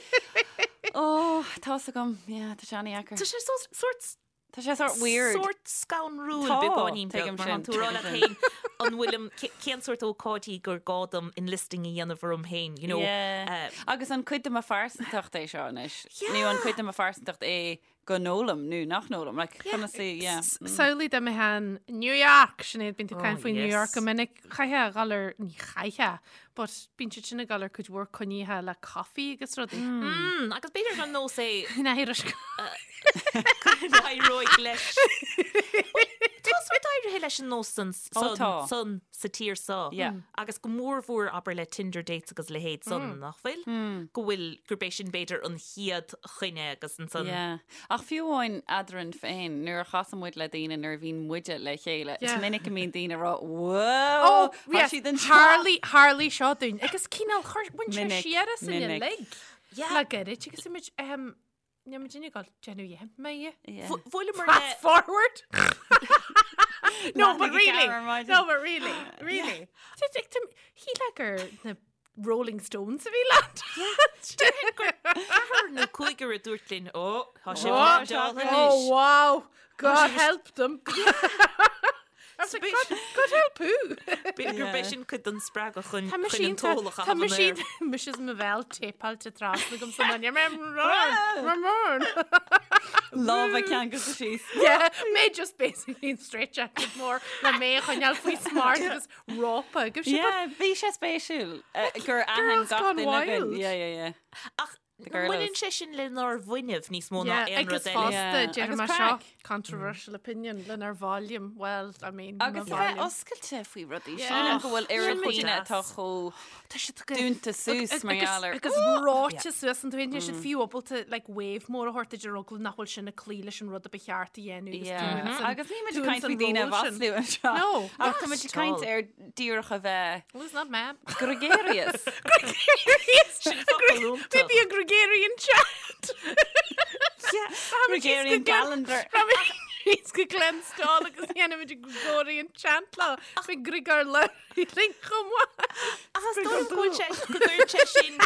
Oh, tá's agam. Yeah, tá sé an-deacair. Tá sé so- sórt Tá sé sórt weird. Sórt scanrúil Tá, beagáinín beag tuigim mar sin, tá tú ag rá leat tuigim féin an bhfuilim cén sórt ócáidí gur gá dom enlisting a dhéanamh orm féin, you know. Yeah. Agus an cuid de mo phearsantacht é seo anois? Nó an cuid de mo phearsantacht é go n-ólaim nó nach n-ólaim? Like, conas é, yeah. Samhlaigh dá mbeifeá in New York, Sinéad, bíonn tú ag Oh, caint faoi New York yes. go minic. Chaithfeá a dhul ar, ní chaithfeá, but bíonn siad sin ag dul ar cuid mhór coinnithe le coffee agus rudaí. Mm, agus b'fhéidir gur nós é Ná héireann. go n-éireoidh leis. Tá sórt éirithe leis an nós san, Ó, san, tá. san sa tír seo. Yeah. Agus go mórmhór abair le Tinder dates agus leithéid san, nach bhfuil? Go bhfuil, gurb é sin b'fhéidir an chéad choinne agus ansan. Yeah. Ach fiú amháin eadrainn féin, nuair a chasann muid le daoine nuair a bhíonn muide le chéile, is Yeah. minic a mbíonn daoine ag rá, Whoa! Oh, Tá yes, siad anseo. tharlaigh, tharlaigh seo dúinn. Agus cineál chuir, bhain sé Minic, siar as in minic. uilig. Yeah. Le gairid agus muid, um, níl muid ag dul déanamh dhéanfaidh mé é. Yeah. Bhuaileamar le... Fast forward. no, but Leathanaigh really. ceathair ar maidin. No, but really, really. Shílfeá gur na Rolling Stones a bhí leat. Ceathrar nó cúigear a dúirt linn, ó, tá sibh Oh, á dteáil Oh, anois. wow. God help them. I was like, God, God help who? B'fhéidir gurb é sin cuid den spreagadh chun Tá chun an t-ól a Tá chaitheamh an aer. mise is mo bhéal téipeáilte trasna agam san onion. Lámha ceangailte síos. Yeah, mé just basically in straight jacket mór le mé a choinneáil faoi smacht agus rópa. Go raibh sé Yeah, bhí sé spéisiúil eh, gur aithin Girls gach gone duine againn. wild. Yeah, yeah, yeah. Ach The girlos. baineann sé sin lenár bhfuinneamh níos mó ná Yeah, aon agus rud eile. fosta Yeah, déarfaidh agus mé seo craic. controversial opinion lenár volume. Well, I mean, mo Agus a bheith volume. oscailte faoi rudaí. Yeah. Sílim go bhfuil oiread Sin daoine deas. atá chomh Tá siad go- dúnta suas mar Agus- gheall ar Agus ráite suas an tuin siad fiú ábalta like wave mór a thabhairt idir eagla nach bhfuil sin ag cloí leis an rud a ba cheart a dhéanamh agus Yeah. dúinn san- Agus ní muid dúinn caint san faoi daoine a ról sin. mhaslú anseo. No. Ach tá muid ag caint Not ar díreach a bheith Well, it's not mad. gregarious. Gregarious. Sin focal iontach. Maybe a gregarian chat. Gregarian calendar. Is go Glenstal agus dhéanfaimid a Gregorian chant lá. Bhí Grigor le linn chomh maith. Ach is dóigh go bhfuil sé go gcuireann sé sin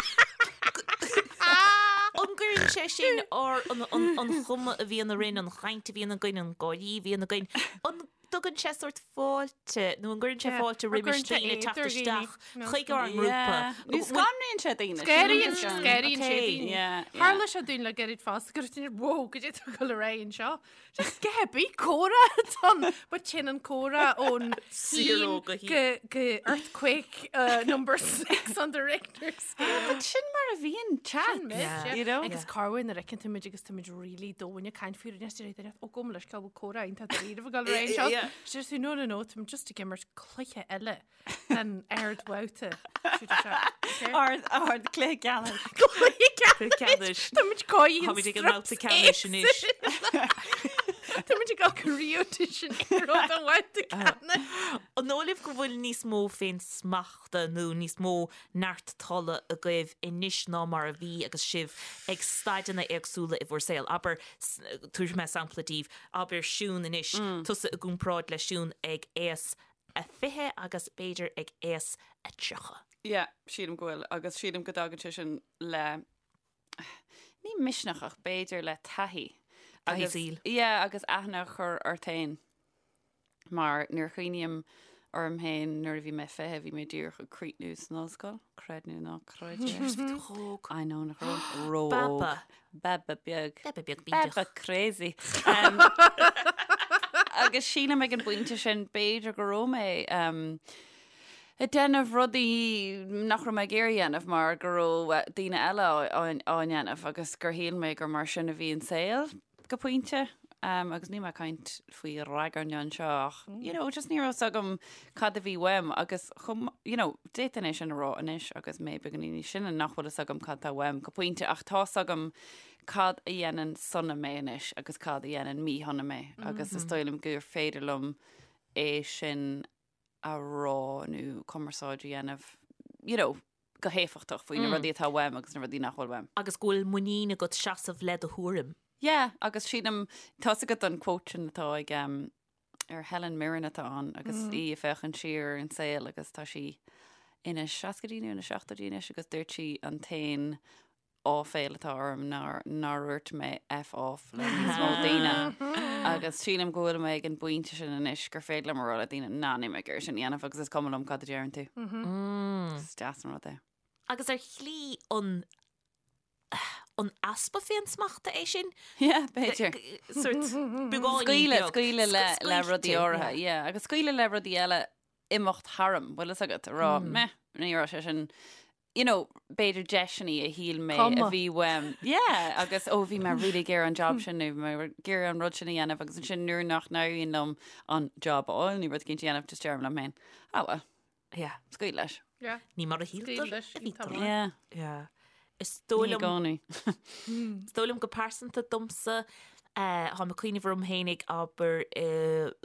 An gcuireann sé sin ar an, an, an chuma a bhíonn orainn, an chaint a bhíonn againn, an gáirí a bhíonn againn, an dtugann sé sórt fáilte nó an gcuireann sé Yeah, fáilte or roimis gcuireann sé daoine teacht éad ar daoine. isteach No. chuig ár ngrúpa? Nó scanraíonn sé daoine. Scanraíonn Sílim go scanraíonn sé Okay. daoine. Yeah, yeah. Tharla sé dúinn le gairid fosta go raibh daoine, Whoa, goidé atá ag dul ar aghaidh anseo. Just get bí comhrá ann, but sin an comhrá ón Zero go go go earthquake uh, number 6 on the Richter scale. But sin mar a bhíonn chat. Sin muid, Yeah. yeah. You know? Agus corruair nuair a fheiceann tú muid agus tá muid really domhain ag caint faoi rud is deir duine, ó gabh mo leithscéal bhfuil comhrá iontach dáiríre ag dul ar aghaidh anseo. Yeah. Is deir tú, no, no, no, táim just ag imirt cluiche eile den ardbhabhta. Siúd é seo. Okay? Ard ard cluiche ceannais. Cluiche Cluiche ceannais. Tá muid cóí Táimid ag an mbabhta ceannais anois. Tá muid ag dul go Rio de Janeiro don bhabhta ceannais. An dóigh libh go bhfuil níos mó féin smachta nó níos mó neart tola agaibh anois ná mar a bhí agus sibh ag staideanna éagsúla i bhur saol? Abair, tabharfaidh mé sampla daoibh, abair Siún anois, tusa i gcomparáid le Siún ag aois a 20 agus b'fhéidir ag aois a 30. Yeah, sílim go bhfuil agus sílim go dtagann sé sin le ní misneach ach b'fhéidir le taithí. Taithí Agus- saoil. Yeah, agus aithne a chur ort féin. Mar nuair a chuimhním orm féin nuair a bhí mé 20, bhí mé díreach ag críochnú san ollscoil, creid nó ná creid é. Bhí tú chomh I know nach raibh ró-óg. Baba. Baba beag. Baba beag bídeach. Baba crazy. Um, agus sílim ag an bpointe sin b'fhéidir go raibh mé um, Ag déanamh rudaí nach raibh mé ag iarraidh a dhéanamh mar go raibh daoine eile á ndéanamh agus gur shíl mé gur mar sin a bhí an saol go pointe. Agus níl mé ag caint faoi ragairne anseo ach you know just ní raibh fhios agam cad a bhí uaim agus chomh you know d'fhéadfainn é sin a rá anois agus mé beagáinín níos sine nach bhfuil fhios agam cad tá uaim go pointe ach tá fhios agam cad a dhéanann sona mé anois agus cad a dhéanann míshona mé agus is dóigh liom gur féidir liom é sin a rá nó cumarsáid a dhéanamh you know, go héifeachtach faoi na rudaí atá uaim agus na rudaí nach bhfuil uaim. Agus go bhfuil muinín agat seasamh le do thuairim. Yeah, agus sílim, tá's agat an quote sin atá ag um, ar Helen Mirren atá ann agus í ag féachaint siar ar an saol agus tá sí ina seascaidí nó ina seachtóidí anois agus dúirt sí an t-aon áiféil atá orm ná nár dhúirt mé F off le níos mó daoine. Agus sílim go bhfuil mé ag an bpointe sin anois gur féidir liom a rá le daoine ná níl mé ag iarraidh sin a dhéanamh agus is cuma liom cad a deireann tú. Is deas an rud é. Agus ar shlí an an easpa féinsmachta é sin? Yeah, b'fhéidir. Sort beagáinín Scaoileadh, scaoileadh le le rudaí áirithe, yeah. Agus scaoileadh le rudaí eile imeacht tharam, bhfuil fhios agat, a rá, meh, ní raibh sé sin you know, b'fhéidir deiseanna a shíl mé a bhí uaim. Yeah, agus ó bhí mé really ag iarraidh an job sin nó bhí mé ag iarraidh an rud sin a dhéanamh agus ansin nuair nach n-éiríonn liom an job a fháil nó rud éicint a dhéanamh, just deirim liom féin, ah well, Yeah. scaoil leis. Yeah. Ní mar a shíltear Scaoil leis, a bhí tá tú. maith. Yeah. Yeah. Is dóigh Ní i liom gcónaí. Is dóigh liom go pearsanta domsa, eh, táim ag cuimhneamh orm fhéinig abair i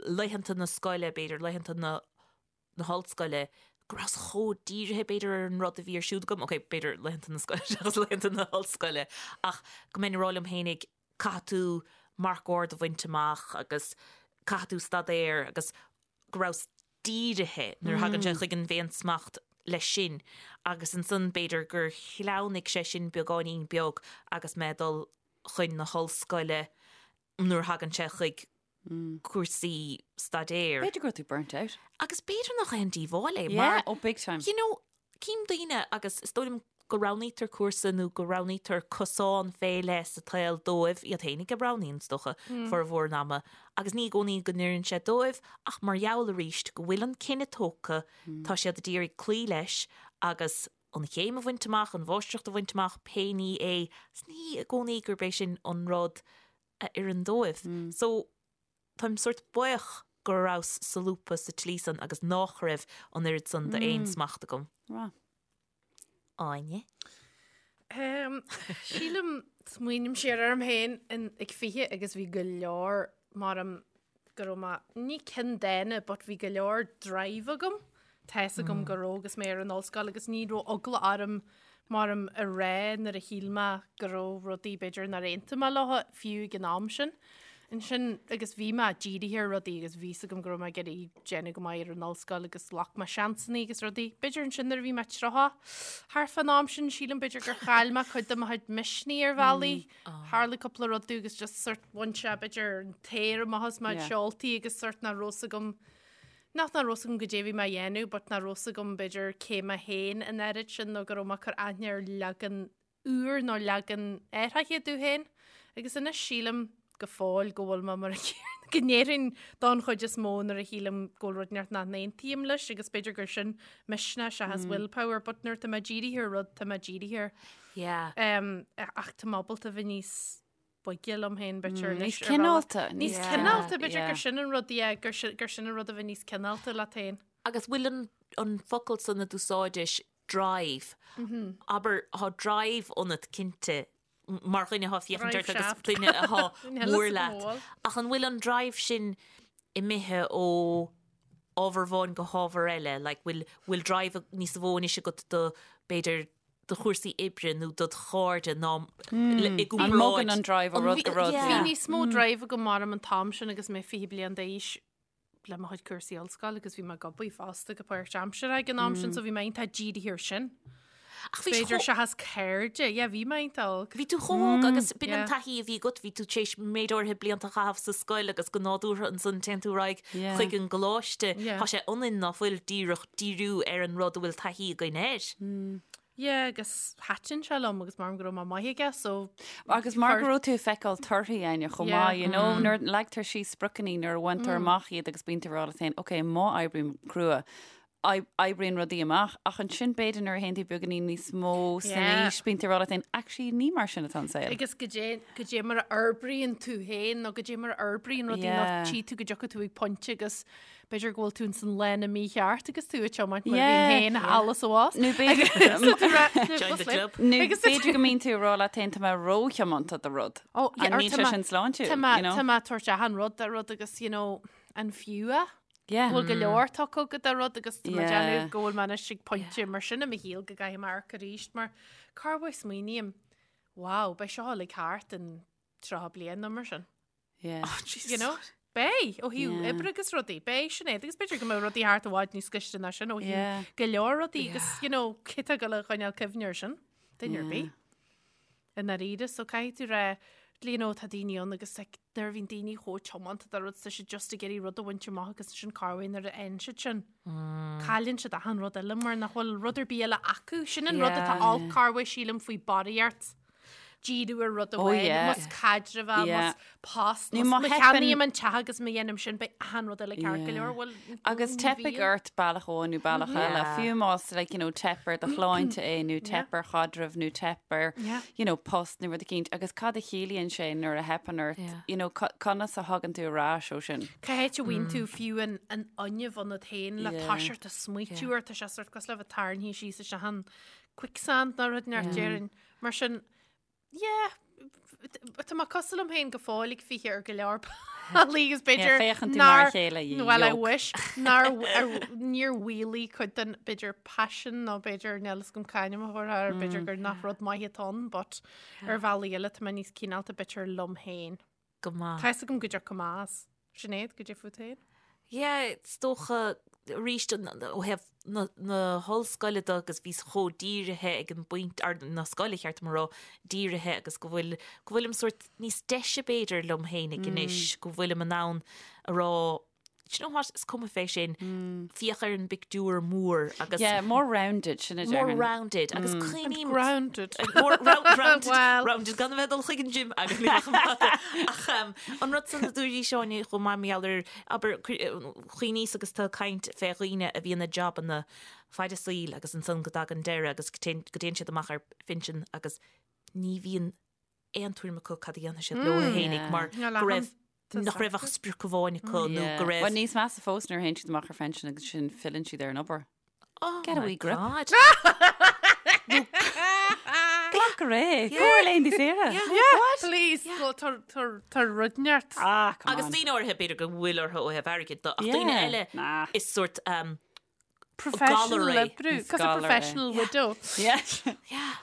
laethanta na scoile, b'fhéidir laethanta na na hollscoile, go rabhas chomh dírithe, b'fhéidir, ar an rud a bhí ar siúl agam, ok, b'fhéidir laethanta na scoile seachas laethanta na hollscoile, ach go mbeinn ag rá liom fhéinig, caithfidh tú marc ard a bhaint amach agus caithfidh tú staidéar agus go rabhas dírithe nuair a thagann sé chuig an bhféinsmacht leis sin agus ansan b'fhéidir gur shleamhnaigh sé sin beagáinín beag agus mé ag dul chun na hollscoile nuair a thagann sé chuig cúrsaí staidéir. B'fhéidir go raibh tú burnt out. Agus b'fhéidir nach aon díobháil é Yeah, mar, oh big time. you know, cím daoine agus is dóigh liom go roghnaítear cúrsa nó go roghnaítear cosán fé leith sa tsaol dóibh, iad fhéinig a roghnaíonn is dócha, formhór an ama, agus ní i gcónaí go n-oireann sé dóibh ach mar gheall arís go bhfuil an cinneadh tógtha, tá siad ag iarraidh cloí leis agus an chéim a bhaint amach, an mháistreacht a bhaint amach, pé ní é, is ní i gcónaí gurb é sin an rud a oireann dóibh. So, táim sórt buíoch go rabhas solúbtha sa tslí san agus nách raibh an oiread san d'fhéinsmacht agam. Right. Áine? Um, sílim, smaoiním siar orm féin in, ag 20 agus bhí go leor mar am go raibh mé, ní ceanndána, but bhí go leor drive agam. Tá fhios agam go raibh agus mé ar an ollscoil agus ní raibh eagla orm mar am a rá nuair a shíl mé go raibh rudaí b'fhéidir nár aontaigh mé leo fiú ag an am sin. Ansin agus bhí mé dírithe ar rudaí agus bhí fhios agam go raibh mé ag iarraidh déanamh go maith ar an ollscoil agus ghlac mé seansanna agus rudaí. B'fhéidir ansin nuair a bhí mé 30 thart fán am sin sílim b'fhéidir gur chaill mé cuid de mo chuid misnigh ar bhealaí. Tharla cúpla rud domh agus just sort bhain sé b'fhéidir an t-aer amach as mo Yeah. seoltaí agus sort nach raibh fhios agam Nach nach raibh fhios agam goidé a bhí mé a dhéanamh but nach raibh fhios agam b'fhéidir cé mé féin an oiread sin nó go raibh mé ag cur aithne ar leagan úr nó leagan athraithe domh féin. Agus anois sílim go fóill go bhfuil mé mar a chéanna go ndéarfainn don chuid is mó nuair a shílim go bhfuil rud inteacht nach n-aontaím leis agus b'fhéidir gur sin misneach seachas willpower but nuair tá mé dírithe ar rud tá mé dírithe air. Yeah. Um, ach tá mé ábalta bheith níos boige liom féin b'fhéidir Níos anois ar bhealach. cineálta. Níos Yeah. cineálta b'fhéidir Yeah. gur sin an rud yeah, gur sin gur sin an rud a bheith níos cineálta leat féin. Agus bhfuil an, an focal san a d'úsáidis drive, abair, thá drive ionat cinnte mar dhuine athá féachaint Drive ort agus shaft. duine athá Níl mór fhios agam leat. bhfuil. Ach an bhfuil an drive sin imithe ó ábhar amháin go hábhar eile? Like, bhfuil, bhfuil drive níos mó anois agat do, b'fhéidir, do chúrsaí oibre nó dod chairde ná i An gcomparáid. mbogann an drive ó rud go rud. Bhí níos mó drive agam mar an t-am sin agus mé 20 bliain d'aois le mo chuid cúrsaí ollscoile agus bhí mé ag obair fosta go páirtaimseartha ag an am sin so bhí mé iontach dírithe air sin. Ach bhí B'fhéidir seachas cairde, yeah, bhí mé iontach óg. Bhí tú chomh hóg agus b'in an yeah. taithí a bhí agat, bhí tú tar éis méid áirithe blianta a chaitheamh sa scoil agus go nádúrtha ansan téann tú ar aghaidh Yeah. chuig an gcoláiste. Yeah. Tá sé ionainn ná fuil díreach díriú ar an rud a bhfuil taithí againn air. Yeah, agus thaitin sé liom agus mar go raibh mé maith aige, so Agus mar go raibh tú ag feiceáil torthaí Áine chomh Yeah. maith, you know, nuair a leagtar síos spriocanna nuair a bhaintear amach iad agus bíonn tú ag rá leat féin, ok, má oibrím crua. Oibríonn rudaí amach, ach ansin b'fhéidir nuair a théann tú beagáinín níos mó san aois, bíonn tú ag rá leat féin, actually ní mar sin atá an saol. Agus goidé, goidé mar a fhorbraíonn tú féin nó goidé mar a fhorbraíonn rudaí nó tchí tú go dtiocfaidh tú ag pointe agus b'fhéidir go bhfuil tú ins an lána mícheart agus tú ag tiomáint mar a bhínn féin thall is abhus. Nó b'fhéidir Join the club. Nó b'fhéidir go mbíonn tú ag rá leat féin tá mé róthiomanta do rud. Oh, yeah, An níl sé sin sláintiúil, Tá mé, you know? tá mé ag tabhairt achan rud do rud agus, you know, an fiú é? Yeah. Bhfuil go leor tugtha agat do rud agus tá mé Yeah. déanamh go bhfuil mé anois ag pointe mar sin i mo shaol go gcaithfidh mé amharc arís mar corruair smaoiním, wow, beidh seo uilig thart in 30 bliain nó mar sin. Yeah. Oh, Jesus. You know? Beidh, ó thaobh Yeah. oibre agus rudaí, beidh Sinéad agus b'fhéidir go mbeidh rudaí thart i bhfad níos gaiste ná sin ó thaobh Yeah. go leor rudaí agus, you know, cé tá ag dul a choinneáil cuimhne air sin, duine ar bith. I ndáiríre, so caithfidh tú rá, you know, tá daoine ann agus like, nuair a bhíonn daoine chomh tiomanta do rud, tá siad just ag iarraidh rud a bhaint amach agus ansin corruair nuair a fhaigheann siad sin, cailleann siad achan rud eile mar nach bhfuil rud ar bith eile acu. Sin an rud atá Yeah. olc corruair sílim faoi barraíocht. Díriú ar rud Oh, amháin, yeah. más caidreamh é, Yeah. más post, Nó más má má theipeann- cheannaím an teach agus má dhéanaim sin, beidh achan rud eile ceart go Yeah. leor. Bhuel, Agus ní teipfidh bhíonn. ort bealach amháin nó bealach eile, Yeah. fiú más like, you know, teip ar do shláinte é nó teip ar chaidreamh nó teip ar Yeah. you know, post nó rud eicínt agus cad a chiallaíonn sé nuair a theipeann ort, Yeah. you know, co- conas a thagann tú ar ais ó sin. Cá háit a bhfaigheann tú fiú an an fhuinneamh ionat féin le Yeah. toiseacht ag smaoitiú air, tá sé sort cosúil le bheith tarraingthe síos isteach an quicksand nó rud inteacht déarfainn. Mar sin, yeah, tá mé cosúil liom féin go fóill ag 20 ar go leor bealaí agus b'fhéidir féachann tú mar a chéile, you Well, I yoke. wish nár níor mhaolaigh cuid den b'fhéidir passion nó b'fhéidir níl fhios agam c'ainm a thabharfá air, b'fhéidir gur nach rud maith atá ann, but ar bhealaí eile tá mé níos cineálta b'fhéidir liom féin. Go maith. Tá fhios agam go dtiocfaidh amach as. Sinéad, goidé fút féin? Yeah, is dócha arís ó thaobh na, na hollscoile de agus bhíos chomh dírithe ag an bpointe, ar na scoile cheart dom a rá, dírithe agus go bhfuil, go bhfuilim sórt níos deise b'fhéidir liom fhéinig anois, go bhfuilim in ann a rá, do you know what, is cuma fé sin, féach ar an bpictiúr mór agus Yeah, more rounded, sin a more déarfainn. rounded agus cuimhním Grounded. More round, rounded, Well. rounded gan a bheith ag dul chuig an gym agus ní bheadh an fada. Ach um, an rud san a dúirt Áine chomh maith mar gheall ar abair cuimhníos agus tú ag caint fé dhaoine a bhíonn i jabanna fad a saoil agus ansan go dtagann deireadh agus go dtéann go dtéann siad amach ar phinsean agus ní bhíonn aon tuairim acu cad a dhéanfaidh siad leo fhéinig mar Níl go aon raibh nach raibh ach sprioc amháin acu nó go raibh Well, níos measa fós nuair a théann siad amach ar phension agus sin filleann siad ar an obair. Oh Get a my wee grip. God. Glac go réidh. Go ar laethanta saoire. Yeah, please. Go tá rud neart. Ah, come Agus on. daoine áirithe b'fhéidir go bhfuil orthu ó thaobh airgid de, ach daoine Yeah. eile Nah. is sort um, Professional galar é. oibriú. Is Cos a galar é. professional widow. Yeah. Yeah.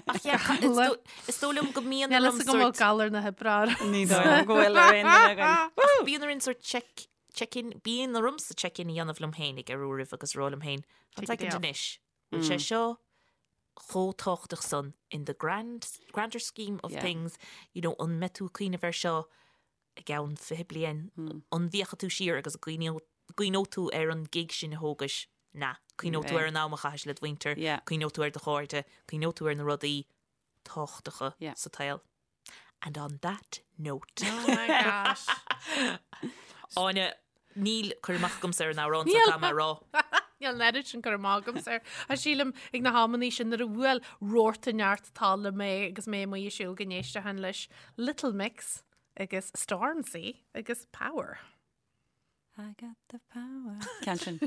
Ach yeah, ca- is dó- is dóigh liom go mbíonn Níl orm fhios agam bhfuil sort galar na hoibre orm. Ní dóigh liom go bhfuil ar aon duine againn. Ach bíonn orainn sort check check-in, bíonn ormsa check-in a dhéanamh liom féinig ar uairibh agus rá liom féin, One Take a second day off. anois, bhfuil sé seo chomh tábhachtach san in the grand, grander scheme of Yeah. things, you know, an mbeidh tú ag cuimhneamh air seo i gceann 20 bliain, an bhféachfaidh tú siar agus cuimhneoidh tú ar an gig sin a thógais? Na, cuimhneoidh tú ar an am a chaithis le do mhuintir, cuimhneoidh tú ar do chairde, cuimhneoidh tú ar na rudaí tábhachtacha sa tsaol. And on that note. Oh my gosh. Áine, níl cur amach agamsa ar an amhrán so caithfidh mé a rá. Níl an oiread sin cur amach agamsa air. Ach sílim ag na hamannaí sin nuair a bhuail rothar neart talla mé agus mé amuigh ag siúl go n-éistfinn leis Little Mix agus Stormzy agus Power. I got the power. Ceann sin.